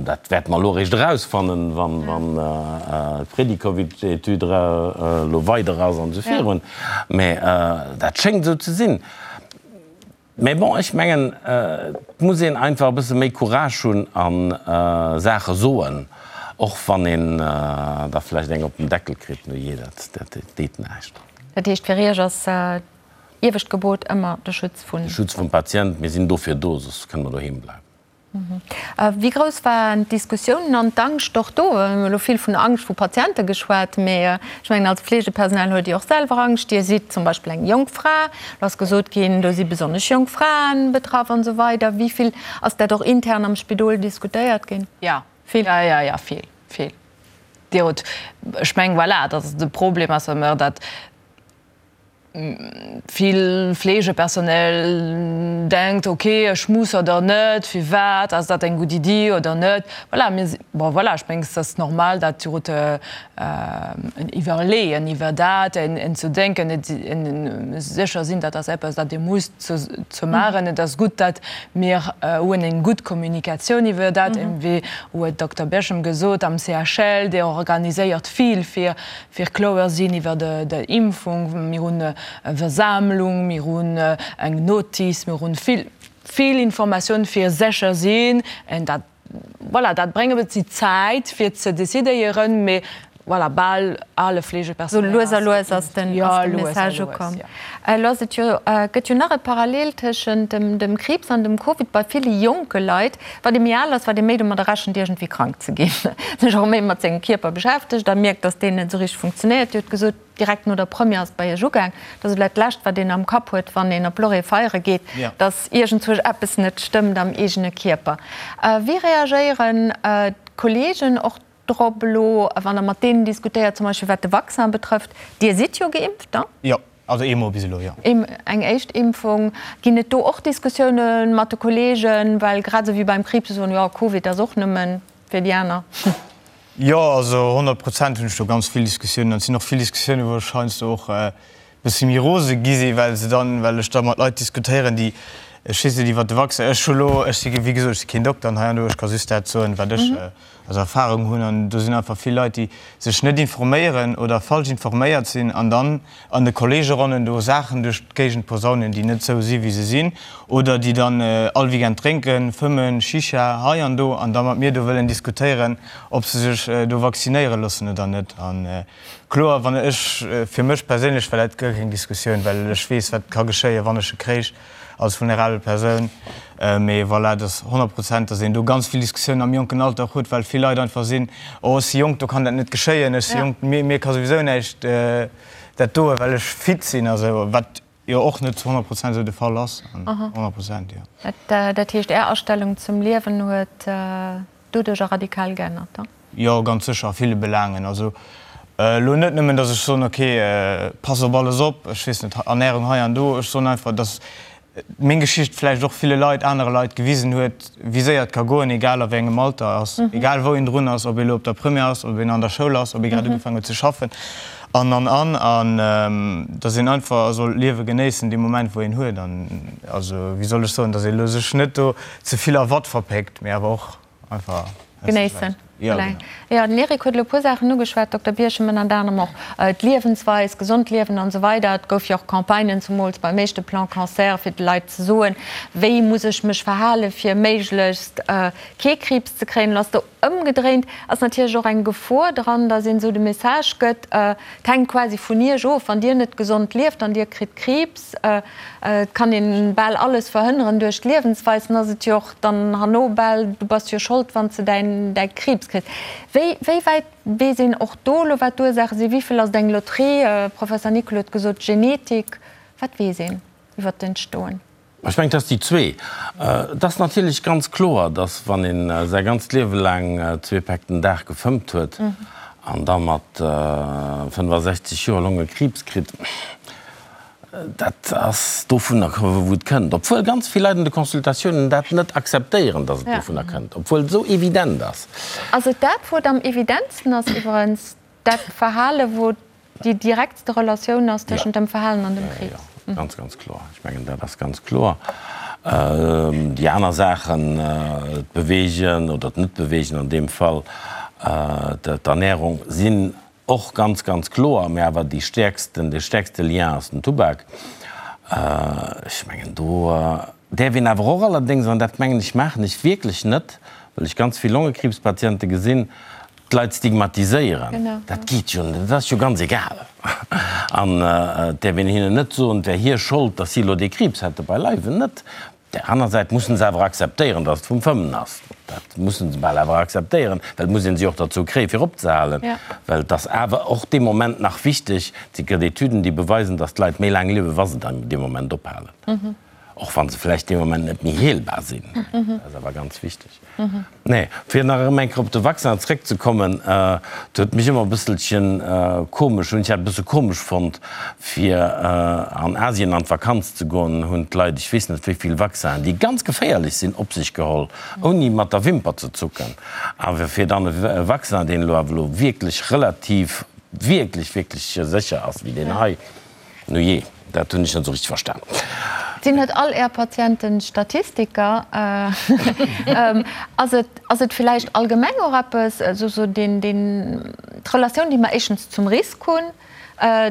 Dat wäerte mer elo eréischt erausfannen, wann d'Predicovid-Etüd elo weider ass an esou virun. Mä dat schéngt esou ze sinn. Mä bon, ech mengen, et muss een einfach e bësse méi Courage hunn a Saache soen, och wann een da vläicht eng op den Deckel kritt. Nujee, dat deet näischt. Dat heescht, fir Iech ass iewescht Gebot ëmmer de Schutz vun. De Schutz vum Patient. Mir sinn dofir do, soss kënne mer doheem bleiwen. Wéi grouss waren d'Diskussiounen an d'Angscht och do? Mir hunn elo vill vun Angscht vu Patiente geschwat, mee ech mengen, als Fleegepersonal huet Dir och selwer Angscht. Dir sidd zum Beispill eng jonk Fra, do ass gesot ginn, do si besonnesch jonk Fraen betraff an esou weider. Wéi vill ass dat och intern am Spidol diskutéiert ginn? Jo, vill. Jo, jo, jo, vill, vill. Dir hutt, ech mengen, voilà, dat ass de Problem ass ëmmer, datt Vill Fleegepersonel denkt, ok, ech muss oder net, firwat, ass dat eng gutt Iddi oder net. Voilà, mir si, bon voilà, ech mengen, et ass normal, dat huet en Iwwerleeën iwwer dat, en ze denken, et sécher sinn, dat ass eppes, dat Dir musst ze maachen. Et ass gutt, dat mir hunn eng gutt Kommunikatioun iwwer dat, wéi huet Dokter Berchem gesot, am CHL, Dir organiséiert vill fir fir kloer sinn iwwer de Impfung. Mir hunn e Versammlung, mir hunn eng Notice, mir hunn vill, vill Informatioun fir sécher sinn. En dat, voilà, dat bréngt e bëssi Zäit fir ze decidéieren, mee voilà, bal alle Fleegepersonal ass. Sou lues a lues ass den Message ukomm. Elo ass et jo, gëtt jo nach e Parallel tëschent dem Kriibs an dem Covid bei ville jonke Leit. Wat ee méi al ass, wat ee méi domadder rechent, iergendwéi krank ze ginn, sech och méi mat sengem Kierper beschäftegt a mierkt, dass deen net esou richteg funktionéiert. Dir hutt gesot, direkt no der Première ass et bei Iech ugaang. Dat ass elo dat Lescht, wat een am Kapp huet, wann een op Lorraine feiere geet, dass iergendzwousch eppes net stëmmt am eegene Kierper. Wéi reagéieren d'Kolleegen och drop elo, wann Der mat deenen diskutéiert, zum Beispill wat de Vaccin betrëfft? Dir sidd jo geimpft, ne? Jo. Also eemol bis elo, jo. Eng éischt Impfung. Ginn et do och Diskussioune mat de Kolleegen? Well grad esou wéi beim Kriibs, se soen, jo, Covid ass och nëmme fir déi aner. Jo, also 100 Prozent hunn ech do ganz vill Diskussiounen. An et sinn och vill Diskussiounen, wou ech heiansdo och e bësse méi rose gi sinn, well se dann, well ech da mat Leit diskutéieren, déi, ech weess net, iwwert de Vaccin, ech hu lo, ech si wéi gesot, ech si keen Dokter an hei an do, ech ka just dat soen, wat ech als Erfahrung hunn. An do sinn einfach vill Leit, déi sech net informéieren oder falsch informéiert sinn an dann an de Kolleegeronnen do Saachen duerch d'Géigend posaunen, déi net sou si wéi se sinn, oder déi dann all Weekend drénken, fëmmen, Shisha hei an do, an da mat mir do wëllen diskutéieren, ob se sech do vaccinéiere loossen oder net. A kloer, wann ech, fir mech perséinlech war dat guer keng Diskussioun, well ech weess, wat ka geschéien, wann ech e kréich als vulnerabel Persoun. Mee voilà, et ass 100 Prozent, datt een do ganz vill Diskussiounen am jonken Alter och huet, well vill Leit einfach sinn, oh ech si jonk, do kann dat net geschéien, ech si jonk, mir ka souwisou näischt dat doen, well ech fit sinn a sou, wat jo och net zu 100 Prozent esou de Fall ass. 100 Prozent, jo. Dat heescht, Är Astellung zum Liewen huet doduercher radikal geännert, da? Jo, ganz sécher, a ville Belaangen. Also elo net nëmmen, datt ech soen, ok, pass op alles op, ech weess net, Ernärung hei an do. Ech soen einfach, datt meng Geschicht vläicht och ville Leit, anere Leit gewisen huet, wéi séier et ka goen, egal a wéi engem Alter ass, egal wou een drun ass, ob ee elo op der Première ass, ob een an der Schoul ass, ob ee grad ugefaangen huet ze schaffen an, an, an. An datt een einfach soll d'Liewe genéissen, dee Moment, wou een huet. An also, wéi soll ech soen, datt ee elo sech net do ze vill a Watt verpéckt, mee awer och, Einfach genéissen. Jo, genau. Jo, den Eric huet elo e puer Saachen ugeschwat, Dokter Birchem, ënnert anerem och d'Liewensweis, gesond liewen an esou weider. Et gouf jo och Campagnen, zumools beim éischte Plan Cancer, fir de Leit ze soen, wéi muss ech mech verhalen, fir méiglechst kee Kriibs ze kréien. Elo ass do ëmgedréint, ass natierlech och eng Gefor dran, datt een esou de Message gëtt, et hänkt quasi vun Iech of, wann Dir net gesond lieft, dann Dir kritt Kriibs. Et kann een bal alles verhënneren duerch d'Liewensweis, dann ass et jo och dann herno bal, du bass jo Schold wann s de däin däi Kriibs kriss. Wéi wéi wäit weess een och do elo wat d'Ursaache sinn? Wéi vill ass et eng Loterie? Professor Nicol huet gesot Genetik. Wat weess een iwwer d'Entstoen? Ech mengen, et ass déi zwee. Et ass natierlech ganz kloer, datt wann ee säi ganzt Liewe laang zwee Päck den Dag gefëmmt huet an da mat 65 Joer Longekriibs kritt, Dat ass dovunner, wou et kënnt. Obwuel ganz vill Leit an de Consultatiounen dat net akzeptéieren, datt et dovunner kënnt, obwuel et esou evident ass. Ass et dat, wou et am evidentsten ass iwwerens, dat Verhale wou déi direktste Relatioun ass tëschent dem Verhalen an dem Kriibs? Jo, ganz, ganz kloer. Ech mengen, dat ass ganz kloer. Déi aner Saachen, d'Beweegen oder d'Net-Beweegen an deem Fall, d'Ernärung, sinn Och ganz, ganz kloer, mä awer déi stäerksten, dee stäerkste Lien ass den Tubak. Ech mengen, do däerf een awer och allerdéngs, an dat mengen ech maachen ech wierklech net, well ech ganz vill Longekriibspatiente gesinn, d'Leit stigmatiséieren. Dat geet jo net, dat ass jo ganz egal. An et däerf een hinnen net soen, et wär hir Schold, datt si elo dee Kriibs hätten, beileiwen net. Op där aner Säit mussen se awer akzeptéieren, datt et vum Fëmmen ass. Dat mussen se bal awer akzeptéieren, well et muss ee si och derzou kréien, fir opzehalen. Well et ass awer och dee Moment nach wichteg, et gëtt Etüden, déi beweisen, datt d'Leit méi laang liewen, wa se dann dee Moment ophalen. Och wa se vläicht dee Moment net méi heelbar sinn. Dat ass awer ganz wichteg. Nee, fir nach erëm eng Kéier op de Vaccin zréckzekommen, et huet mech ëmmer e bësselchen komesch, hunn ech dat e bësse komesch fonnt, fir an Asien an d'Vakanz ze goen, hunn d'Leit ech weess net wéi vill Vaccinen, déi ganz geféierlech sinn, op sech geholl, ouni mat der Wimper ze zucken. Awer fir dann e Vaccin, deen elo awer elo wierklech relativ, wierklech, wierklech sécher ass wéi deen hei, Nujee, dat hunn ech net esou richteg verstan. Sinn net all Är Patienten Statistiker? Ass et, ass et villäicht allgemeng och eppes, esou sou deen, deen, d'Relatioun, déi mer éischtens zum Risk hunn,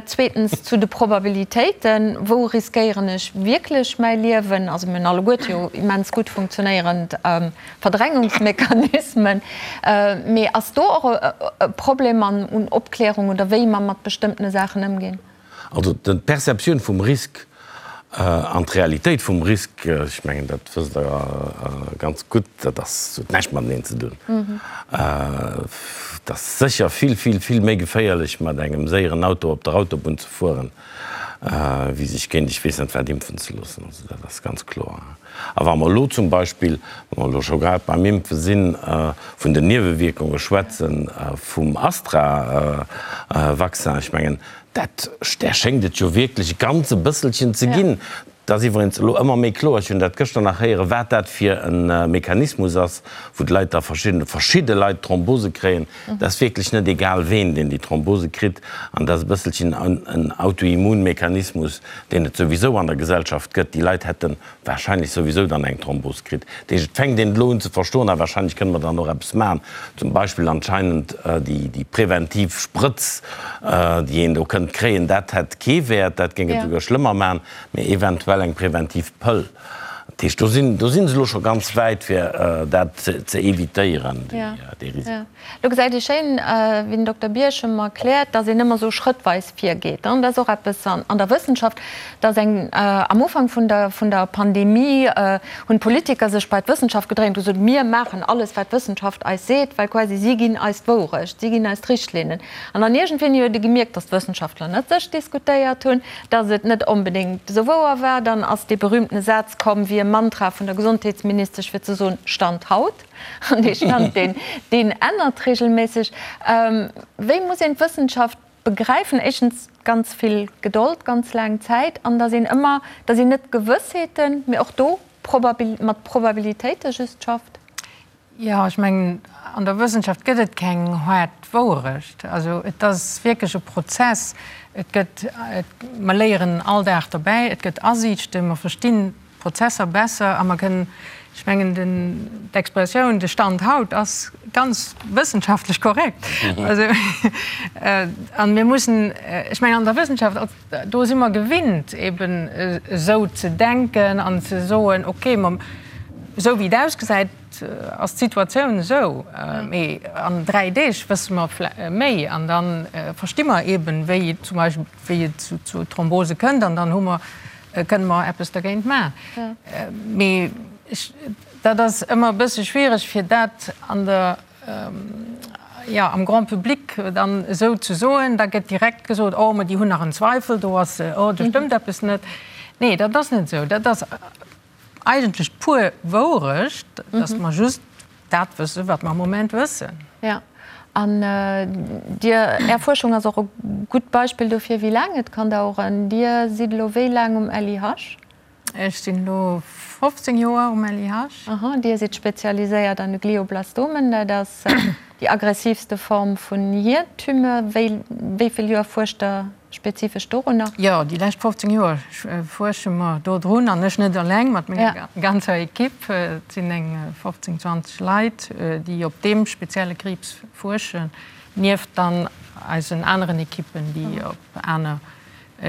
zweetens zu de Probabilitéiten, wou riskéieren ech wierklech mäi Liewen? Also mir hunn alleguerte jo immens gutt funktionéierend Verdrängungsmechanismen. Mee ass do och e Problem an un Opklärung oder wéi mer mat bestëmmtene Saachen ëmginn? Also d'Perceptioun vum Risk an d'Realitéit vum Risk, ech mengen dat wësst Der ganz gutt, dat ass, huet näischt mateneen ze dun. Et ass sécher vill, vill, vill méi geféierlech mat engem séieren Auto op der Autobunn ze fueren, wéi sech géint ech weess net wat impfen ze loossen. Also dat ass ganz kloer. A wa mer elo zum Beispill, wa mer elo scho grad beim Impfe sinn, vun den Niewewierkunge schwätzen vum Astra-Vaccin, ech mengen, dat, där schéngt et jo wierklech e ganz e bësselchen ze ginn. Et ass iwwregens elo ëmmer méi kloer, ech hunn dat gëschter nach héieren, wat dat fir e Mechanismus ass, wou d'Leit da verschidden, verschidde Leit Thrombose kréien. Et ass wierklech net egal ween, deen déi Thrombose kritt. An dat ass e bësselchen en Autoimmunmechanismus, deen et souwisou an der Gesellschaft gëtt. Déi Leit hätte wahrscheinlech souwisou dann eng Thrombos kritt. Dat heescht, et fänkt een elo un ze verstoen a wahrscheinlech kënne mer dann och eppes maachen, zum Beispill anscheinend déi präventiv Sprëtz, déi een do kënnt kréien, dat hätt kee Wäert, dat géing et souguer schlëmmer maachen, mee eventuell eng präventiv Pëll. Dat heescht, do sinn, do si se elo scho ganz wäit, fir dat ze evitéieren, dee Risiko. Lo gesäit ee schéin, wéi den Dokter Bierchem erkläert, dass een ëmmer esou schrëttweis virgeet. Dat ass och eppes an der Wëssenschaft, dass eng, am Ufank vun der, vun der Pandemie hunn d'Politiker sech bei d'Wëssenschaft gedréint, hu gesot, mir maachen alles, wat d'Wëssenschaft eis seet, well quasi si ginn eis d'Wourecht, si ginn eis d'Richtlinnen. An dann iergendwéini huet ee gemierkt, dass d'Wëssenschaftler net sech diskutéiert hunn, dass et net onbedéngt esou wouer war. Dann ass dee berühmtene Saz komm, wéi e Mantra vun der Gesondheetsministesch, fir ze soen, Stand haut. An dee Stand, deen, deen ännert regelméisseg. Wéi muss een d'Wëssenschaft begräifen? Éischtens ganz vill Gedold, ganz laang Zäit, an datt een ëmmer, datt een net Gewëssheeten, mee och do Probabil, mat Probabilitéite just schafft? Jo, ech mengen, an der Wëssenschaft gëtt et keng haart Wouerecht. Also et ass wierklech e Prozess. Et gëtt, et, mer léieren all Dag derbäi, et gëtt Asiichten, mer verstinn Prozesser besser a mer kënnen, ech mengen, den, d'Expressioun de Stand haut ass. ganz wëssenschaftlech korrekt. Also, an mir mussen, ech mengen an der Wëssenschaft, do si mer gewinnt eben esou ze denken an ze soen, okay, ma esou wéi et ausgesäit, ass d'Situatioun esou, mee an 3 Deeg wësse mer méi an da versti mer eben, wéi et zum Beispill, wéi et zu Thrombose kënnt an dann hu mer, kënne mer eppes dergéint maachen. Mee ech, dat ass ëmmer e bësse schwiereg, fir dat an der, jo, am Grand public dann esou ze soen. Da gëtt direkt gesot, oh, ma déi hunn nach en Zweifel, do ass, oh, do stëmmt eppes net. Nee, dat ass net esou. Dat ass. Eigentlech d'pur Wourecht, dass mer just dat wëssen, wat mer am Moment wëssen. Jo, an Dir, Är Fuerschung ass och e gutt Beispill dofir, wéi laang et kann daueren. Dir sidd elo wéi laang um LIH? Ech sinn elo 15 Joer um LIH. Aha, Dir sidd spezialiséiert an de Glioblastomen, dat ass déi aggressivste Form vun Hiertumeur. Wéi, wéi vill Joer fuerscht Der Spezifesch dorunner? Jo, déi lescht 15 Joer fuersche mer dodrun, an ech net eleng, mat menger ganzer Ekipp. Et sinn eng 15, 20 Leit, déi op deem spezielle Kriibs fuerschen, nieft dann eisen aneren Ekippen, déi op aner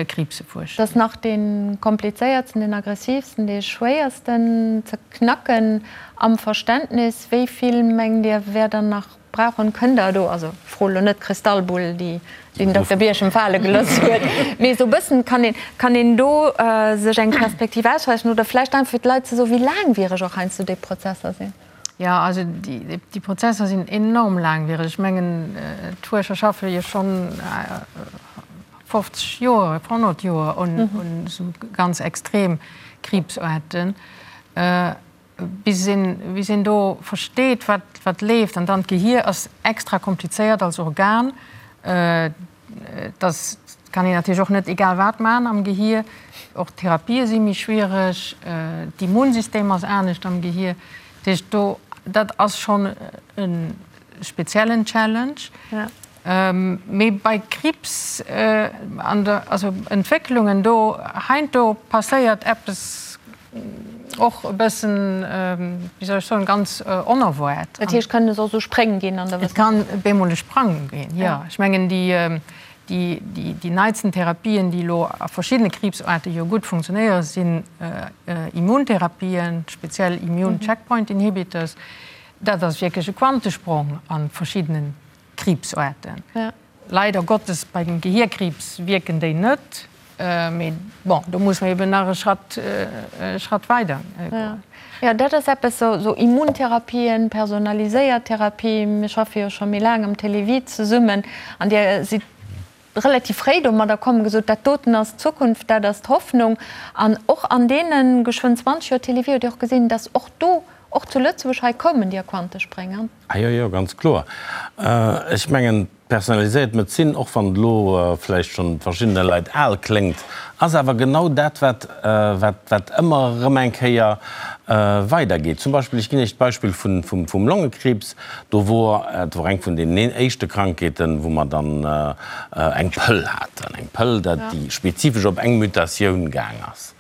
Kriibse fuerschen. Dat ass nach dee komplizéiertsten, deen aggressivsten, dee schwéiersten ze knacken am Verständnis. Wéi vill, mengt Dir, wär dann nach Brauchen kënnt der do, also fro elo net d'Kristallbull déi den Dokter Birchen fale geloss huet, mee esou bëssen kann een, kann een do sech eng Perspektiv ausrechnen oder vläicht einfach fir d'Leit ze soen, wéi laangwiereg och heiansdo déi Prozesser sinn? Jo, also déi Prozesser sinn enorm laangwiereg. Ech mengen d'Fuerscher schaffe jo schonn 50 Joer, 100 Joer un esou ganz extrem Kriibsaarten. Bis een, bis een do versteet, wat, wat leeft. An dann d'Gehier ass extra komplizéiert als Organ. Dass kann een natierlech och net egal wat maachen am Gehier. Och d'Therapië si méi schwiereg. D'Immunsystem ass anescht am Gehier. Dat heescht, do, dat ass schonn e speziellen Challenge. Mee bei Kriibs an der, also Entwécklungen do, heindo passéiert eppes och e bëssen, wéi soll ech soen, ganz onerwaart. Dat heescht, kënnen es och esou Spréng ginn an der Wëssenschaft? Et kann bemol e Sprang ginn, jo. Ech mengen, déi, déi, déi neitsten Therapien, déi elo a verschiddene Kriibsaarte jo gutt funktionéieren, sinn Immuntherapien, speziell Immune Checkpoint Inhibitors. Dat ass wierklech e Quantesprong a verschiddenen Kriibsaarten. Leider Gottes bei dem Gehierkriibs wierken déi net, mee bon, do muss mer eben nach e Schratt, e Schratt weider goen. Jo, dat ass eppes, esou Immuntherapien, personaliséiert Therapie. Mir schaffe jo scho méi laang am Télévie zesummen an Dir sidd relativ fréi domadder komm, gesot, dat doten ass d'Zukunft, dat ass d'Hoffnung. An och an deene geschwënn 20 Joer Télévie hutt Dir och gesinn, dass och do, och zu Lëtzebuerg, hei koumen déi Quantesprénger. Ah jo, jo, ganz kloer. Ech mengen, d'personaliséiert Medezin, och wann et elo vläicht schonn verschiddene Leit al kléngt, ass awer genau dat, wat, wat, wat ëmmer erëm eng Kéier weidergeet. Zum Beispill, ech ginn Iech d'Beispill vun, vum, vum Longekriibs. Do wor, dat wor eng vun deenen éischte Krankheeten, wou mer dann eng Pëll haten, eng Pëll, dat, déi spezifesch op eng Mutatioun gaang ass.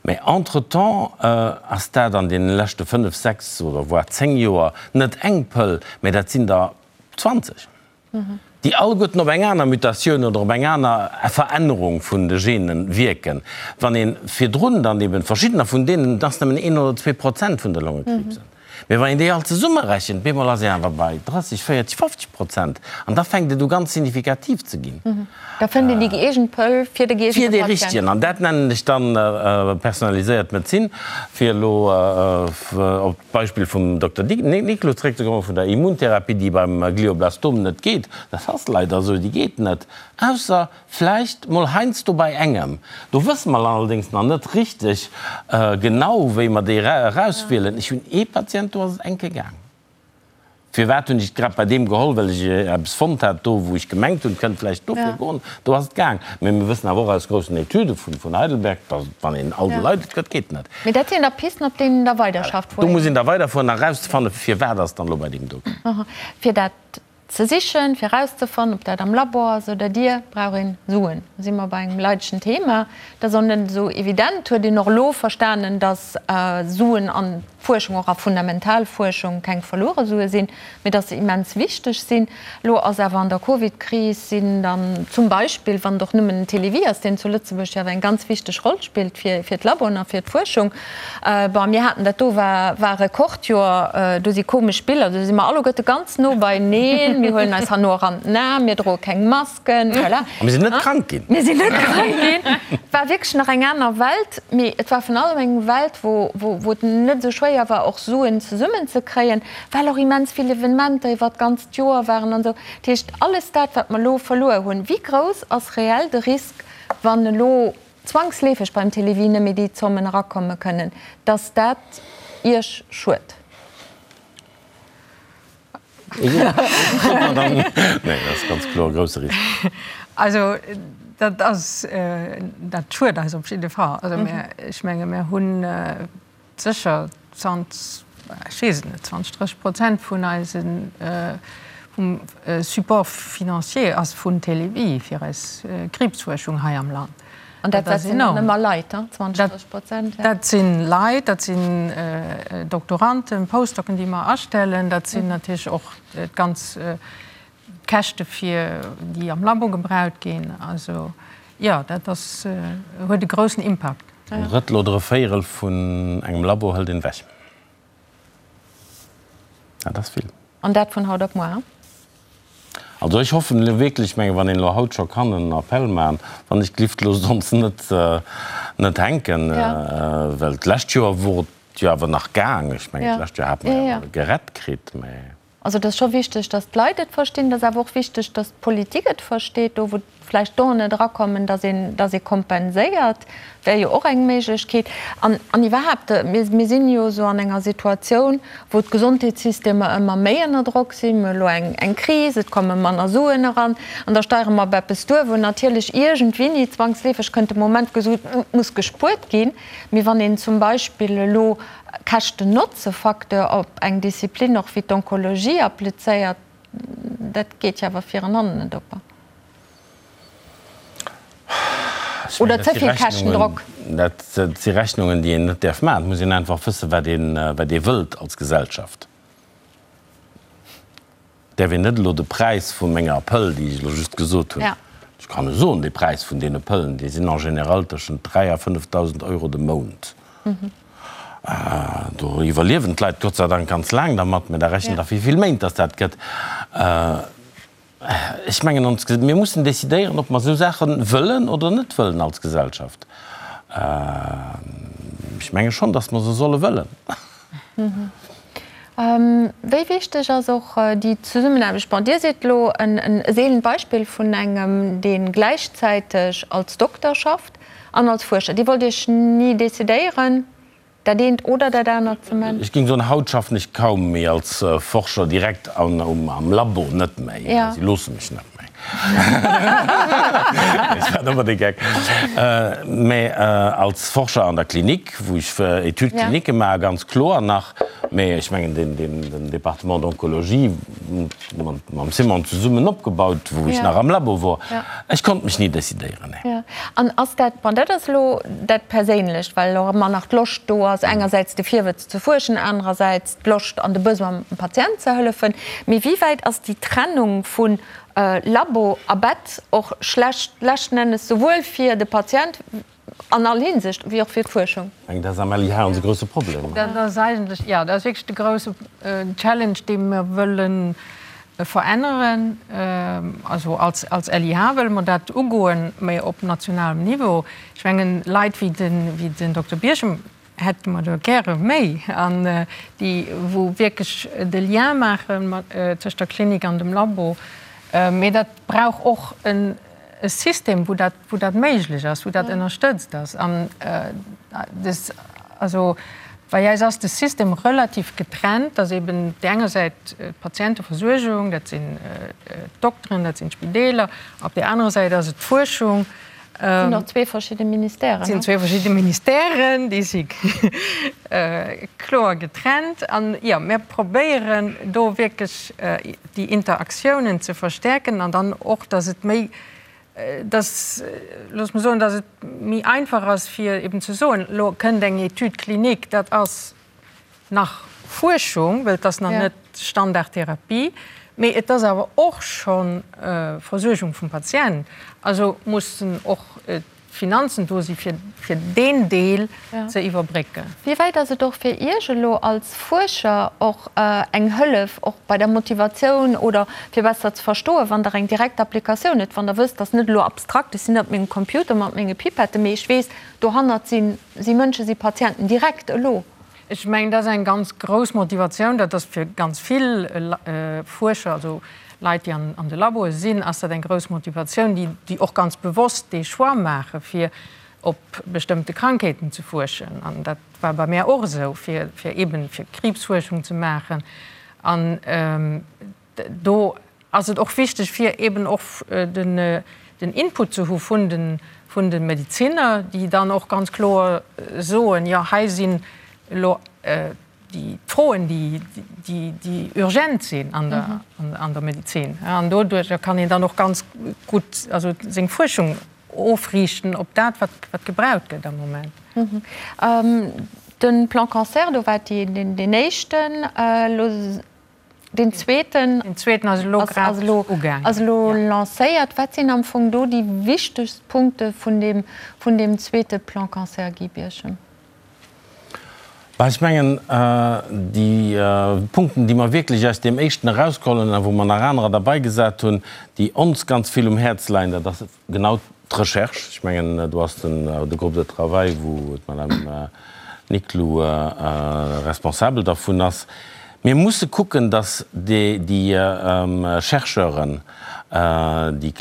Mä entretemps ass dat an deene leschte fënnef, sechs oder voire zéng Joer net eng Pëll, mä dat sinn der 20, déi alleguerten op eng aner Mutatioun oder op eng aner Verännerung vun de Gene wierken. Wann ee virdrun dann eben verschiddener vun deenen, et ass nëmmen een oder 2% vun de Longekriibsen, Mee wann een déi all zesummerechent, bemol ass een awer bei 30, 40, 50 Prozent. An da fänkt et u ganz signifikativ ze ginn. Da fënnt een déi gëeegent Pëll fir de gëeegente Patient. Fir dee richtegen. An dat nennen ech dann personaliséiert Medezin. Fir elo op d'Beispill vum Dokter Niclou zréckzekommen, vun der Immuntherapie, déi beim Glioblastom net geet. Dat ass leider esou, déi geet net, ausser Vläicht mol heiansdo bei engem. Do wësse mer allerdéngs nach net richteg genau, wéi mer déi erauswielen. Ech hunn ee Patient, do ass et eng Kéier gaang. Firwat hunn ech et grad bei deem geholl? Well ech eppes fonnt hat do, wou ech gemengt hunn, et kënnt vläicht dofir goen. Do ass et gaang. Mee mir wëssen awer och aus groussen Etüde vun Heidelberg, datt et, wann een all de Leit et gëtt, geet net. Mee dat sinn da Pisten, op deenen Der weiderschafft, wou. Do muss een da weiderfueren a erauszefannen, firwat ass et dann elo bei deem do gaang. Fir dat Ze sichen, fir erauszefannen, ob dat am Labor ass oder dir, brauch een Suen. Do si mer bei engem leidegen Thema. Dat ass och net esou evident. Huet een och elo verstanen, dass Suen an. Fuerschung, och a fundamental Fuerschung, keng verluere Sue sinn, mee dass se immens wichteg sinn. Elo ass awer an der Covid-Kris sinn dann zum Beispill, wann et och nëmmen den Télévie ass, deen zu Lëtzebuerg jo awer eng ganz wichteg Roll spillt fir d'Laboen a fir d'Fuerschung, bon, mir haten dat do war war Rekordjoer, do si komesch Biller, do si mer alleguerte ganz no beineen, mir huelen eis herno och an den Aarm, mir droe keng Mask. Voilà. A mir sinn net krank ginn. Mir sinn net krank ginn. Et war wierklech nach eng aner Welt, mee et war vun allem eng Welt, wou, wou et net esou schwéier war, och Suen zesummenzekréien, well och immens vill Evenementer iwwert d'ganzt Joer waren an esou. Dat heescht, alles dat, wat mer elo verluer hunn, wéi grouss ass reell de Risk, wann elo zwangsleefeg beim Télévie net méi déi Zommen erakomme kënnen, dass dat Iech schued? Nee, dat ass ganz kloer e grousse Risk. Also dat ass, dat schued eis op jidde Fall. Also mir, ech menge mir hunn sécher 20, ech weess et net, 20, 30 Prozent vun eise vum Support financier ass vun Télévie fir eis Kriibsfuerschung hei am Land. An dat dat sinn dann ëmmer Leit, 20, 30 Prozent? Dat si Leit, dat sinn Doktoranden, Postdocen, déi mer astellen. Dat sinn natierlech och d'ganz Käschte fir déi am Labo gebraut ginn. Also jo, dat ass, huet e groussen Impakt. En Drëttel oder e Véierel vun engem Labo hëlt een ewech. Dat ass vill. An dat vun haut op muer? Also ech hoffen elo wierklech, ech menge wann een elo haut scho kann en Appell maachen, wann ech d'Lift loosst ons net net hänken, well d'lescht Joer wor et jo awer nach gaang. Ech mengen d'lescht Joer hate mer jo awer gerett kritt, mä. Also et ass scho wichteg, datt d'Leit et verstinn, et ass awer och wichteg, datt d'Politik et versteet, do wou vläicht Donen net erakommen, dass een, dass ee kompenséiert, wär jo och eng Méiglechkeet. An, an iwwerhaapt, mir, mir sinn jo esou an enger Situatioun, wou d'Gesondheetssystemer ëmmer méi ënner Drock sinn. Mir hu elo eng, eng Kris, et komme manner Suen eran, an da steiere mer op eppes duer, wou natierlech iergendwéini zwangsleefeg kënnt de Moment gesot, et muss gespuert ginn. Mee wann een zum Beispill elo Käschten-Notze-Facteur op eng Disziplin och wéi d'Onkologie applizéiert, dat geet jo awer vir an hannen net op. Oder ze vill Käschtendrock? Dat si Rechnungen, déi een net däerf maachen. Et muss een einfach wëssen, wat een, wat ee wëllt als Gesellschaft. Et däerf een net elo de Präis vu menger Pëll, déi ech elo just gesot hunn, ech kann e soen, de Präis vun deene Pëllen, déi sinn en général tëschent 3 a 5.000 Euro de Mount. Do iwwerliewen d'Leit Gott sei Dank ganz laang dermat, mä da rechent Der, wéi vill Méint dass dat gëtt. Ech mengen, ons, mir mussen decidéieren, ob mer esou Saache wëllen oder net wëllen als Gesellschaft. Ech menge schonn, datt mer se solle wëllen. Wéi wichteg ass och déi Zesummenaarbecht? Bon, Dir sidd elo e seelent Beispill vun engem, dee gläichzäiteg als Dokter schafft an als Fuerscher. Dir wollt Iech ni decidéieren? Dat eent oder dat anert ze man. Ech géing soen, haut schaffen ech kaum méi als Forscher direkt am Labo, net méi, si loosse mech net méi. Ech war ëmmer de Geck. Mä als Forscher an der Klinik, wou ech Études cliniques maachen, ganz kloer nach. Mä ech mengen, den Département d'oncologie, mam Simon zesummen opgebaut, wou ech nach am Labo wor. Ech konnt mech ni decidéieren, nee. An ass dat, bon, dat ass elo dat Perséinlecht, well och ëmmer nach d'Loscht do ass, engersäits de Virwëtz ze fuerschen, anerersäits d'Loscht an de Besoin, dem Patient ze hëllefen. Mee wéi wäit ass déi Trennung vu Labo a Bett och schlecht leschten Ennes souwuel fir de Patient, An all Hinsicht, wéi och fir d'Fuerschung. Eng, dat ass am LIH onse grousse Problem. Dat ass eigentlech, jo, dat ass wierklech de grousse Challenge, dee mer wëlle veränneren. Also als als LIH wëlle mer dat ugoen, mä op nationalem Niveau. Ech mengen, Leit wéi den, wéi den Dokter Birchem hätte mer der gäre méi, an déi wou wierklech de Lien maache mat tëscht der Klinik an dem Labo. Mee dat brauch och en e System, wou dat, wou dat méiglech ass, wou dat ënnerstëtzt ass. An des, also bei eis ass de System relativ getrennt, dass eben op där enger Säit d'Patienteversuergung, dat sinn d'Dokteren, dat sinn d'Spideeler, op där anerer Säit ass et d'Fuerschung. Et sinn och zwee verschidde Ministèren. Et sinn zwee verschidde Ministèren, déi si kloer getrennt. An jo, mir probéieren do wierklech déi Interaktiounen ze verstärken an dann och, dass et méi, dass, looss mer soen, dass et méi einfach ass fir eben ze soen, elo kënnt eng Étude clinique, dat ass. nach Fuerschung, well et ass nach net Standardtherapie, mee et ass awer och scho Versuergung vum Patient. Also mussen och d'Finanzen do si fir deen Deel ze iwwerbrécken. Wéi wäit ass et och fir Iech elo als Fuerscher och eng Hëllef, och bei der Motivatioun oder fir besser ze verstoen, wann Der eng direkt Applikatioun hutt, wann Der wësst, dass net elo abstrakt, ech sinn net op mengem Computer mat menge Pipetten, mee ech weess, dohannert si Mënschen, si Patienten direkt elo? Ech mengen, dat ass eng ganz grouss Motivatioun. Dat ass fir ganz vill Fuerscher, also Leit, déi an de Laboe sinn, ass dat eng grouss Motivatioun, déi och ganz bewosst dee Choix maache fir op bestëmmte Krankheeten ze fuerschen. An dat war bei mär och esou, fir eeben fir Kriibsfuerschung ze maachen. An do ass et och wichteg, fir eben och den Input ze hu vun de Medeziner, déi dann och ganz kloer soen, jo hei sinn elo déi Froen, déi urgent sinn an der Medezin. An doduerjer kann een dann och ganz gutt also seng Fuerschung ofriichten op dat, wat gebraucht gëtt am Moment. De Plan Cancer, do war deen éischten elo. Deen zweeten Deen zweeten ass elo grad ugaangen. Ass elo lancéiert. Wat sinn am Fong do déi wichtegst Punkte vun deem, vun deem zweete Plan Cancer, Guy Birchen? Bah, ech mengen, déi Punkten, déi mer wierklech aus deem éischten erausgeholl hunn a wou mer nach anerer derbaigesat hunn, déi ons ganz vill um Häerz leien, dat ass Genau d'Recherche, ech mengen, do ass den de Groupe de travail, wou d'Madame Niclou responsabel dervun ass. Mir musse kucken, datt déi Chercheuren, déi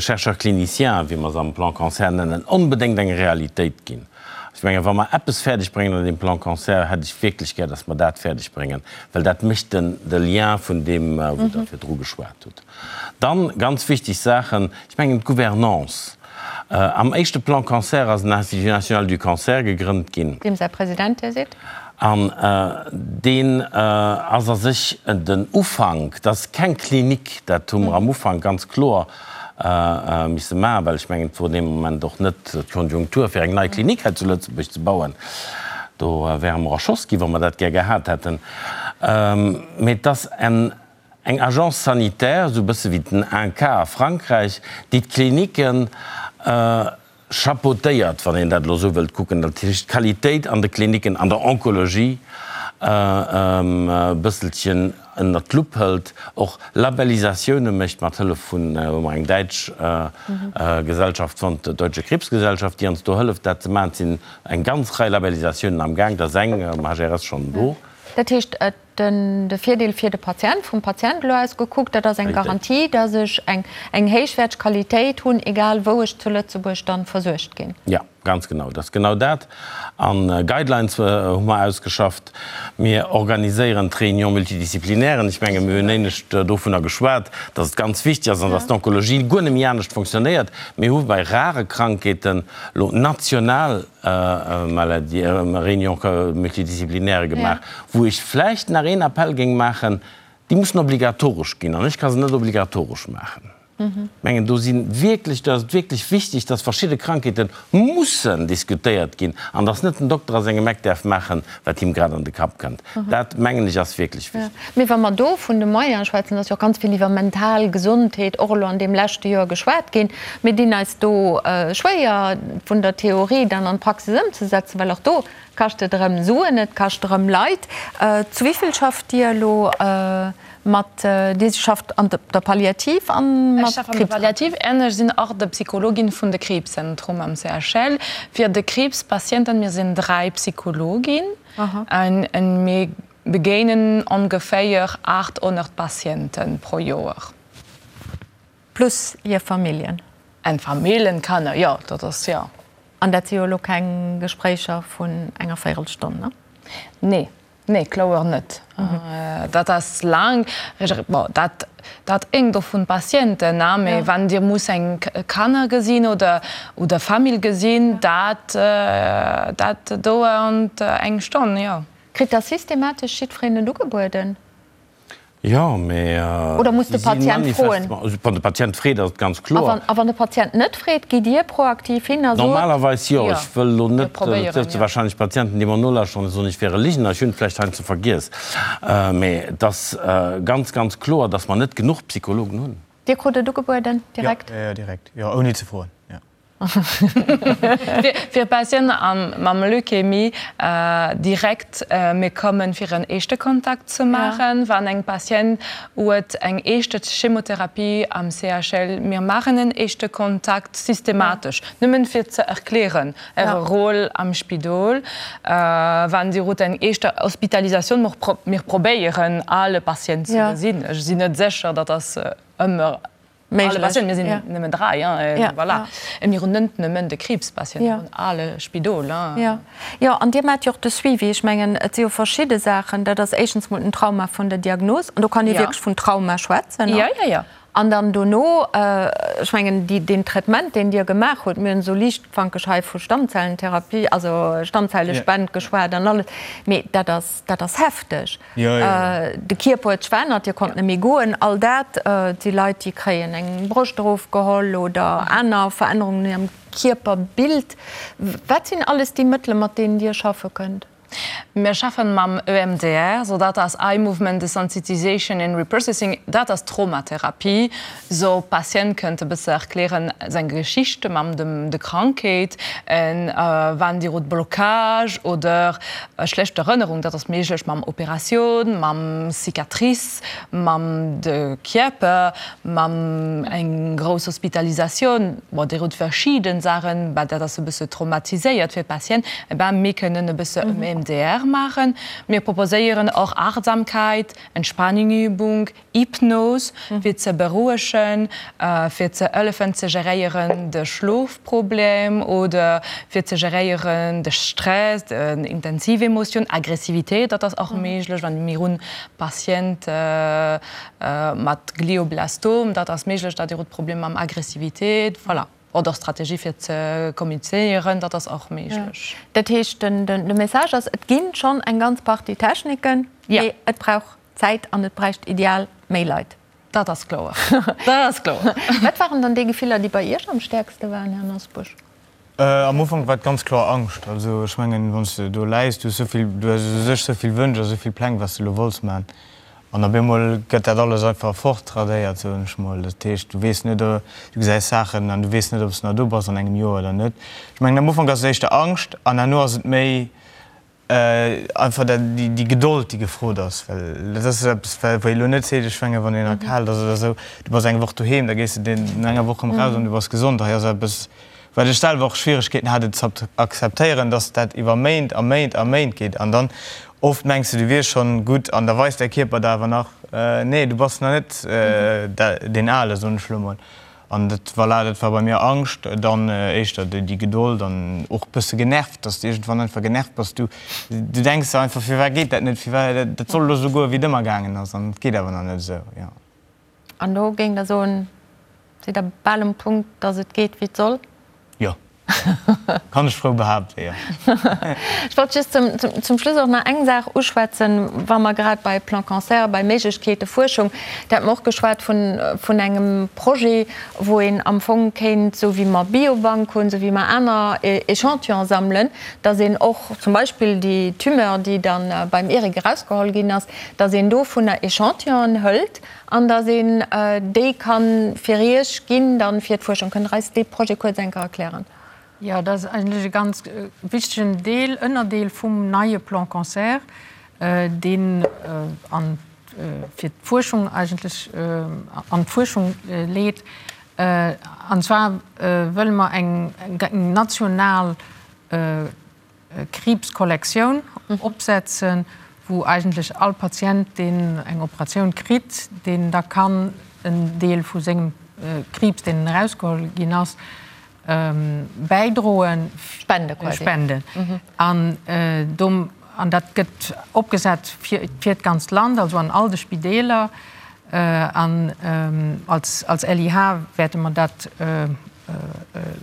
Chercheurs cliniciens, wéi mer se am Plan Cancer nennen, onbedéngt eng Realitéit ginn. Ech mengen, wa mer eppes fäerdeg bréngen an deem Plan Cancer, hätt ech wierklech gär, datt mer dat fäerdeg bréngen, well dat mécht den de Lien vun deem, wou Der virdru geschwat hutt. Dann, ganz wichteg Saachen, ech mengen d'Gouvernance. Am éischte Plan Cancer ass den Institut national du cancer gegrënnt ginn. Deem säi President Dir sidd. An deen ass a sech den Ufank, dat ass keng Klinik, dat hu mer am Ufank ganz kloer misse maachen, well ech mengen, et wor dee Moment och net d'Konjunktur, fir eng nei Klinik hei zu Lëtzebuerg ze bauen. Do wäre mer erschoss ginn, wa mer dat gär gehat hätten. Mee et ass en Eng Agence sanitaire, esou e bësse wéi den INCa a Frankräich, déi d'Klinicken chapeautéiert, wann een dat elo esou wëllt kucken, dat heescht d'Qualitéit an de Klinicken an der Onkologie e bësselchen ënnert d'Lupp hëlt, och Labellisatioune mécht mat Hëllef vun, hu mer eng däitsch Gesellschaft fonnt, d'Deutsche Krebsgesellschaft, déi ons do hëlleft dat ze maachen. Et sinn eng ganz Rei Labellisatiounen am Gaang, da ass eng am HRS schonn do. Dat heescht, et Den de Virdeel fir de Patient, vum Patient elo aus gekuckt, dat ass eng Garantie, dass ech eng eng héichwäerteg Qualitéit hunn, egal wou ech zu Lëtzebuerg dann versuergt ginn. Jo, ganz genau, dat ass genau dat. A Guidelines hu mer ausgeschafft. Mir organiséieren d'Réunion multidisciplinairen. Ech menge mir hunn éinescht dovunner geschwat, dass et ganz wichteg ass an dass d'Onkologie guer net méi anescht fonctionnéiert. Mir hu bei rare Krankheeten elo national Maladie, Réunion multidisciplinaire gemaach, wou ech vläicht nach een Appell géing maachen, déi mussen obligatoresch ginn an ech ka se net obligatoresch maachen. Ech mengen, do si wierklech, do ass et wierklech wichteg, dass verschidde Krankheete mussen diskutéiert ginn an dass net den Dokter a sengem Eck däerf maachen, wat him grad an de Kapp kënnt. Dat, mengen ech, ass wierklech wichteg. Mee wa mer do vun de Moyene schwätzen, ass jo och ganz vill iwwer mental Gesondheet och elo an deem leschte Joer geschwat ginn. Mir dinn eis do schwéier, vun der Theorie dann an d'Praxis ëmzesetzen, well och do kascht et erëm Suen, et kascht erëm Leit. Zu wéi vill schafft Dir elo mat, Dir schafft an der Palliativ a mat Ech schaffe an der Palliativ an ech sinn och de Psychologin vun de Kriibszentrum am CHL fir de Kriibspatienten. Mir sinn 3 Psychologin. An mir begéinen ongeféier 800 Patiente pro Joer. Plus hir Familljen. An Familljen, Kanner, jo, dat ass, jo. An dat si jo elo keng Gespréicher vun enger Véirelstonn, ne? Nee, nee, kloer net. Dat ass laang. Bon, dat Dat héngt och vun Patienten a, mee wann Dir muss eng Kanner gesinn oder oder Famill gesinn, dat dat dauernd eng Stonn, jo. Kritt da systematesch jiddwereen et ugebueden? Jo, mee Oder muss de Patient froen? Wann de Patient freet, ass et ganz kloer. A wann de Patient net freet, gitt Dir proaktiv hin a sot. Normalerweis jo. Ech wëll elo net, et sëtze warscheinlech Patienten, déi mer nolauschteren an soen, ech wier e Ligener, ech hunn et vläicht heiansdo vergiess. Mee et ass ganz, ganz kloer, datt mer net genuch Psychologen hunn. Dir krut et ugebueden direkt? Jo, jo, direkt, jo, ouni ze froen, jo. Fir Patienten mam Leukämie direkt, mir kommen fir en éischte Kontakt ze maachen. Wann eng Patient huet eng éischte Chemotherapie am CHL, mir maachen en éischte Kontakt systematesch, nëmmen fir ze erklären äre Rôle am Spidol. Wann Dir hutt eng éischte Hospitalisatioun, mir probéieren alle Patient ze gesinn. Ech sinn net sécher, datt ass ëmmer Alle Patienten, mir sinn nëmmen 3, voilà. A mir hunn net nëmmen de Kriibspatient, mir hunn alle Spidol. Jo, jo, an Dir maacht jo och de Suivi. Ech mengen, et si jo verschidde Saachen. Dat ass éischtens mol den Trauma vun der Diagnos, an do kann ee wierklech vun Trauma schwätzen. Jo, jo, jo. An dann dono, ech mengen, déi, deen Traitement, deen Dir gemaach hutt, mir hunn esou liichtfankeg hei vu Stammzellentherapie, also Stammzellespend geschwat an alles, mee dat ass, dat ass hefteg. De Kierper huet sech verännert, Dir konnt net méi goen, all dat. Et si Leit, déi kréien eng Broscht erofgeholl oder aner Verännerungen un hirem Kierperbild. Wat sinn alles déi Mëttele, mat deenen Dir schaffe kënnt? Mir schaffen mam EMDR, so dat ass Eye Movement Desensitization and Reprocessing, dat ass Traumatherapie. So Patient kënnt e bësse erklären seng Geschichte mam dem de Krankheet, en wann Dir hutt Blocage oder schlecht Erënnerung, dat ass méiglech mam Operatioun, mam Cicatrice, mam de Kierper, mam eng grouss Hospitalisatioun, bon Dir hutt verschiden Saachen, bah dat ass e bësse traumatiséiert fir d'Patient, eh ben mir kënnen e bësse EMDR maachen. Mir proposéieren och Achtsamkeit, Entspannungübung, Hypnos, fir ze berouegen, fir ze hëllefen ze geréieren de Schlofproblem oder fir ze geréieren de Stress, den intensiv Emotioun, Aggressivitéit, dat ass och méiglech, wann mir hunn Patient mat Glioblastom, dat ass méiglech, datt dir hutt Problem mam Aggressivitéit, voilà. Oder Strategie fir ze kommunizéieren, dat ass och méiglech. Dat heescht, de Message ass, et ginn schonn eng ganz Partie Techniken, mee et brauch Zäit an et bräicht ideal méi Leit. Dat ass kloer. Dat ass kloer. Wat waren dann déi Gefiller, déi bei Iech am stäerkste waren, Här Nosbusch? Am Ufank war et ganz kloer Angscht. Also ech mengen, wann s de do läis, du hues esou vill, du hues u sech esou vill Wënsch a esou vill Pläng, wat s de elo wollts maachen. An op eemol gëtt dat alles einfach fortradéiert, soen ech mol. Dat heescht, du weess net, du gesäis Saachen an du weess net, ob s de nach do bass an engem Joer oder net. Ech mengen, am Ufank ass et éischter Angscht an herno ass et méi, Einfach dat, déi Gedold, déi gefrot ass, well dat ass eppes, wou ee lo net seet, ech mengen, wann een erkaalt ass oder esou, du bass eng Woch doheem, da gees de no enger Woch erëm raus an du bass gesond. Hei ass eppes, wat ech selwer och Schwieregkeeten hat, et ze akzeptéieren, dass dat iwwer Méint a Méint a Méint geet. An dann oft mengs de, du wiers schonn gutt an da weist däi Kierper der awer nach, nee, du bass nach net deen Ale, soen ech lo mol. An dat, voilà, dat war bei mir Angscht, dann éischter déi Gedold an och e bësse genervt, dass de iergendwann einfach genervt bass. Du, du denks der einfach, firwat geet dat net, firwat, dat soll elo esou goen, wéi et ëmmer gaangen ass an et geet awer nach net esou, jo. An do géingt Der soen, sidd Der bal um Punkt, dass et geet, wéi et soll? Jo. Kann ech frou behaapten, jo. Ech wollt just zum Schluss och nach eng Saach uschwätzen, wa mer grad bei Plan Cancer, bei Méiglechkeete Fuerschung, do hat mer och geschwat vun engem Projet, wou een am Fong kéint, esou wéi mer Biobank hunn, esou wéi mer aner Échantillone sammelen, datt een och zum Beispill déi Tumeur, déi da beim Eric erausgeholl ginn ass, datt een dovunner Échantillonen hëlt An datt een déi ka fir Iech ginn dann fir d'Fuerschung. Kënnt Der eis dee Projet kuerz eng Kéier erklären? Jo, dat ass eigentlech e ganz wichtegen Deel, Ënnerdeel vum neie Plan Cancer, deen an fir d'Fuerschung eigentlech an d'Fuerschung leet. An zwar wëlle mer eng national Kriibskollektioun opsetzen, wou eigentlech all Patient, deen eng Operatioun kritt, deen da kann en Deel vu sengem Kriibs, deen erausgeholl ginn ass, bäidroen, spende quasi. Spenden. An do, an dat gëtt opgesat fir d'ganzt Land, also an all de Spideeler. An als LIH wäerte mer dat,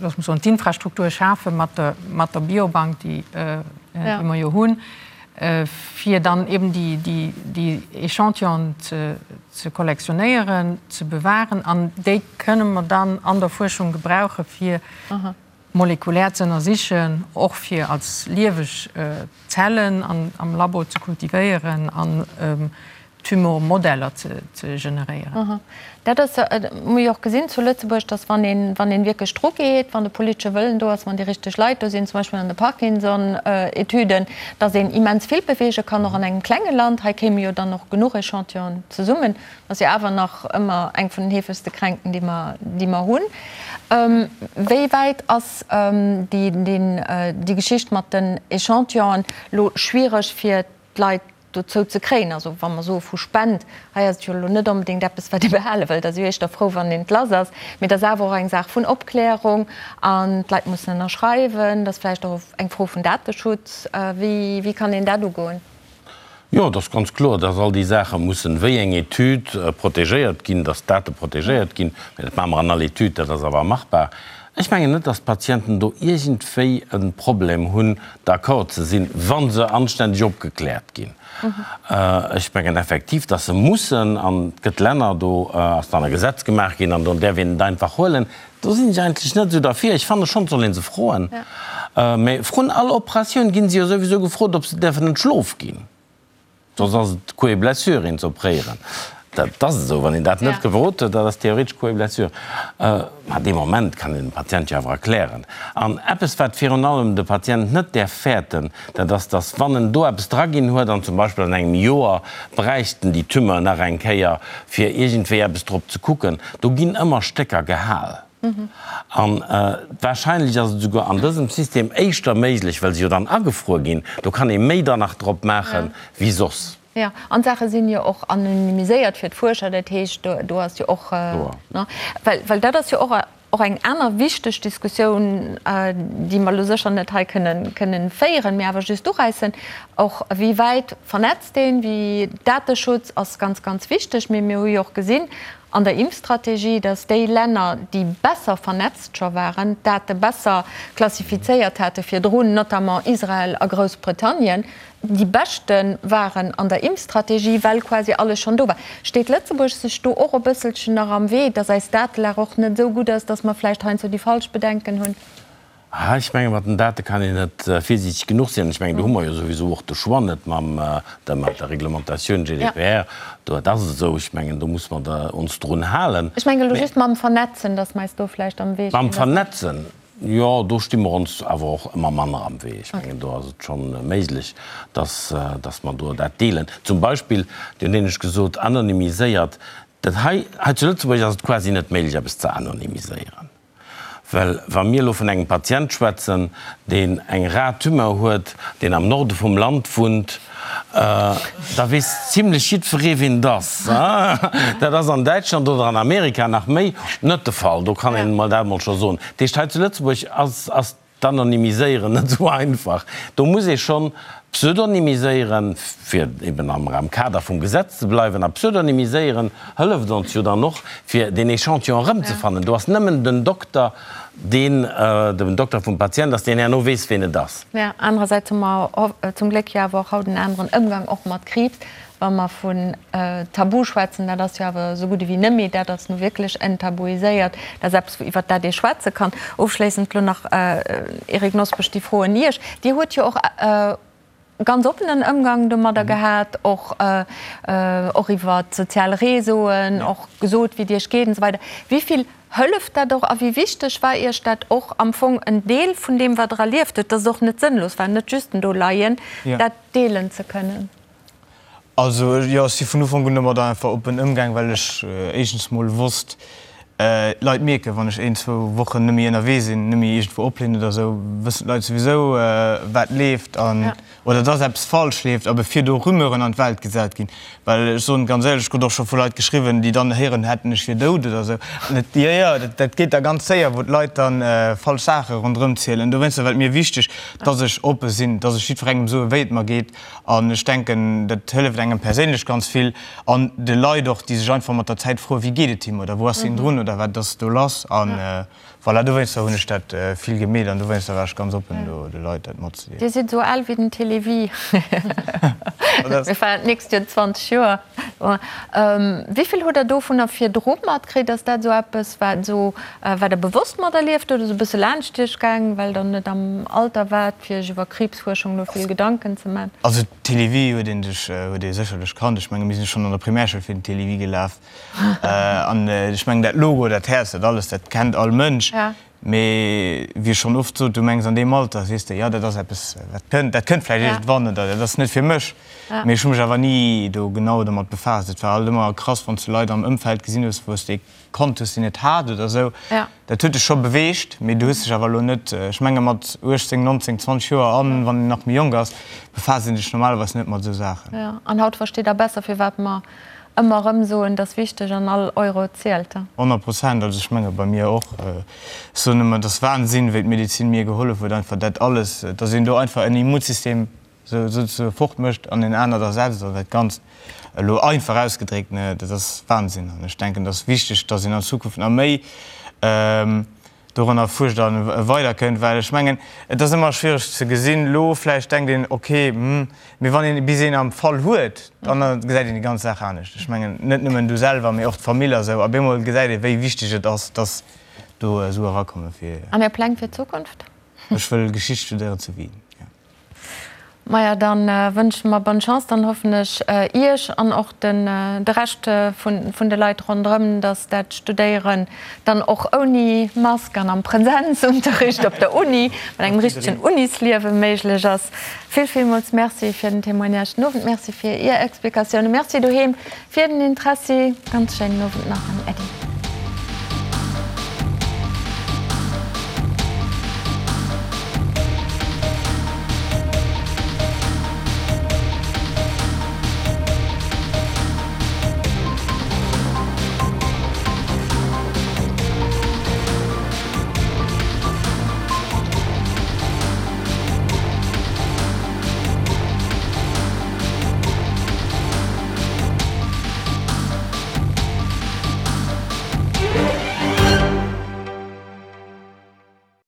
looss mer soen, d'Infrastruktur schafe mat der, mat der Biobank, déi, déi mer jo hunn, fir dann eben déi, déi, déi Échantillonen ze. ze kollektionéieren, ze bewahren an déi kënne mer dann an der Fuerschung gebrauche fir molekulär ze ënnersichen, och fir als lieweg Zellen am Labo ze kultivéieren an Tumormodeller ze generéieren. Dat ass, hu jo och gesinn zu Lëtzebuerg, datt wann een, wann een wierklech dru geet, wann de politesche Wëllen do ass, wann déi richteg Leit do sinn, zum Beispill an de Parkinson-Etüden, datt een immens vill beweege kann, och an engem klenge Land. Hei kéime jo dann och genuch Echantillonen zesummen. Dat ass jo awer nach ëmmer eng vun den heefegste Kränkten, déi mer, déi mer hunn. Wéi wäit ass déi, déi Geschicht mat den Echantillonen elo schwiereg fir d'Leit dozou ze kréien? Also wa mer soe vu Spend, hei ass et jo elo net onbedéngt eppes, wat ee behale wëllt, ass jo éischter frou, wann een et lass ass, mee et ass awer och eng Saach vun Opklärung an d'Leit mussen ënnerschreiwen, et ass vläicht och eng Fro vun Dateschutz. Wéi, wéi kann een dat ugoen? Jo, et ass ganz kloer, dass all déi Saache mussen, wéi eng Etüd, protegéiert ginn, dass d'Date protegéiert ginn. Mä dat maache mer an all Etüd, dat ass awer machbar. Ech mengen net, dass d'Patienten do iergendwéi e Problem hunn, d'accord ze sinn, wa se anständeg opgekläert ginn. Ech mengen effektiv, dass se mussen, an et gëtt Länner, do ass dann e Gesetz gemaach ginn an do däerf een et einfach huelen. Do sinn ech eigentlech net esou derfir. Ech fanne schonn, et soll ee se froen. Mä vrun all Operatioun gi se jo souwisou gefrot, ob se däerfen entschlof ginn. Soss ass et Coup et blessure, een ze opréieren. Dat ass esou. Wann een dat net gefrot huet, dat ass theoretesch Coup et blessure. Mä dee Moment kann een dem Patient jo awer erklären. An eppes, wat virun allem de Patient net däerf fäerten, dat ass, dass wann en do eppes draginn huet an zum Beispill an engem Joer bräicht en déi Tumeur nach eng Kéier, fir iergendwéi eppes drop ze kucken, do ginn ëmmer Stécker gehal. An wahrscheinlech ass et esouguer an dësem System éischter méiglech, well se jo dann agefruer ginn, do kann ee méi dann nach drop maache wéi soss. Jo, an d'Saache sinn jo och anonymiséiert fir d'Fuerscher, dat heescht, do ass jo och, well dat ass jo och Och eng aner wichteg Diskussioun, déi mer elo sécher net hei kënnen féieren, mee awer just uräissen, och wéi wäit vernetzt een, wéi Dateschutz ass ganz, ganz wichteg. Mee mir hu jo och gesinn an der Impfstrategie, dass déi Länner, déi besser vernetzt scho waren, d'Date besser klassifizéiert hate virdrun, notamment Israel a Groussbritannien, déi beschte waren an der Impfstrategie, well quasi alles schonn do war. Steet Lëtzebuerg sech do och e bësselchen nach am Wee, datt eis Datelag och net esou gutt ass, datt mer vläicht heiansdo déi falsch Bedenken hunn? Ah, ech menge mat den Date kann een net virsiichteg genuch sinn. Ech mengen, do hu mer jo souwisou och de Choix net mam der mat der Reglementatioun GDPR. Do, dat ass esou. Ech mengen, do muss mer der ons drun halen. Ech menge elo just mam Vernetzen, datt mer eis do vläicht am Wee stinn. Mam Vernetzen? Jo, do sti mer ons awer och ëmmer manner am Wee. Ech mengen, do ass et scho méiglech, dass, dass mer do dat deelen. Zum Beispill, Dir hunn éinescht gesot, anonymiséiert. Dat hei, hei zu Lëtzebuerg ass et quasi net méiglech, eppes ze anonymiséieren. Well wa mir elo vun engem Patient schwätzen, deen eng rar Tumeur huet, deen am Norde vum Land wunnt, Da weess zimlech jiddweree wien et ass. Dat ass an Däitschland oder an Amerika nach méi net de Fall, do kann een emol dat emol scho soen. Dat heescht, hei zu Lëtzebuerg ass ass d'Anonymiséieren net esou einfach. Do muss ee schonn pseudonymiséieren, fir eben am am Kader vum Gesetz ze bleiwen. A pseudonymiséieren hëlleft ons jo dann och, fir deen Echantillon erëmzefannen. Do ass nëmmen den Dokter, deen den Dokter vum Patient ass, deen herno weess, ween et ass. Mä anerersäits hu mer zum Gléck jo awer och haut en aneren Ëmgang och mat Kriibs. Wa mer vun Tabu schwätzen, dat ass jo awer esou gutt ewéi net méi, dat ass nu wierklech enttabuiséiert, dat ass eppes, iwwert dat ee schwätze kann. Ofschléissend elo nach, Eric Nosbusch, déi Fro un Iech. Dir hutt jo och ganz oppenen Ëmgang domadder gehat, och och iwwer d'sozial Réseauen, och gesot, wéi et Iech geet an esou weider. Wéi vill hëlleft dat och a wéi wichteg war Iech dat och am Fong en Deel vun deem, wat Der erlieft hutt, dass et och net sënnlos war, net just en Doleien, dat deelen ze kënnen? Also jo, ech si vun Ufank un domadder einfach oppen ëmgaang, well ech éischtens mol wosst, d'Leit mierken, wann ech een, zwou Wochen net méi ënnerwee sinn, net méi iergendwou opleen oder esou, wëssen d'Leit souwisou, wat leeft an, oder dass eppes falsch leeft a bevir do Rumeuren an d'Welt gesat ginn. Well ech soen et ganz éierlech, ech krut och scho vu Leit geschriwwen, déi dann héieren hätten, ech wier dout oder esou. An et, jo, jo, dat, dat geet da ganz séier, wou d'Leit dann falsch Saache ronderëm zielen. Dowéinster war et mir wichteg, dass ech oppe sinn, dass ech jiddwerengem soe wéi et mer geet. An ech denken, dat hëlleft engem perséinlech ganz vill an de Leit och, déi sech einfach mat der Zäit froen, wéi geet et him oder wou ass hien drun. oder wat ass do lass? An voilà, dowéinster hunn ech dat vill gemeet an dowéinster war ech ganz oppen do de Leit dat matzedeelen. Dir sidd esou al wéi den Télévie. Mir feiern d'nächst Joer 20 Joer. Wéi vill hutt Der dovunner virdru matkritt? Ass dat esou eppes, wat esou, wat Der bewosst materlieft hutt oder esou e bësse laanscht Iech gaang, well Der net am Alter waart, fir Iech iwwer Kriibsfuerschung elo vill Gedanken ze man? Also Télévie huet een sech, huet ee sécherlech kannt. Ech menge mir sinn schonn an der Primärschoul fir den Télévie gelaf. An ech mengen dat Logo, dat Häerz, dat alles, dat kennt all Mënsch. Mee wéi ech schonn oft sot, du mengs an deem Alter sees de, jo dat ass eppes wat kënnt, dat kënnt vläicht iergendwann oder dat ass net fir mech. Mee ech hu mech awer ni do genau domat befaasst. Et war alt ëmmer krass, wann s du Leit am Ëmfeld gesinn hues, wou s de kannt hues, deen et hat oder esou. Dat huet dech scho beweegt, mee du hues dech awer elo net, ech menge mat 18, 19, 20 Joer an wann een nach méi jonk ass, befaasst een sech normalerweis net mat esou Saachen. Jo, an haut versteet Der besser, firwat mer Ëmmer erëm soen, et ass wichteg an all Euro zielt. 100 Prozent, also ech menge bei mir och. Ech soen ëmmer, et ass Wahnsinn, wéi d'Medezin mir gehollef huet, einfach dat alles, dass een do einfach en Immunsystem souzesoe fort mécht an en anert ersetzt an dat Ganzt, elo einfach ausgedréckt, ne, dat ass Wahnsinn. An ech denken, et ass wichteg, dass een an Zukunft nach méi doranner fuerscht a weiderkënnt, well ech mengen, et ass ëmmer schwiereg ze gesinn. Elo vläicht denkt een, ok, hm, mee wann een bis een am Fall huet, dann gesäit een déi ganz Saach anescht. Ech mengen, net nëmmen du selwer, mee och d'Famill a sou. Op eemol gesäit ee wéi wichteg et ass, dass do Sue erakomme fir. An Är Pläng fir d'Zukunft? Ech wëll Geschicht studéieren zu Wien, jo. Maja, dann wënschen mer bonne Chance, dann hoffen ech Iech an och den de Rescht vun vun de Leit ronderëm, dass dat Studéieren dann och ouni Mask an am Präsenzunterricht op der Uni mat engem richtegen Unisliewe méiglech ass. Vill villmools Merci fir den Témoignage den Owend, Merci fir Ier Explikatiounen, Merci doheem fir den Interessi. Ganz schéinen Owend nach an Äddi.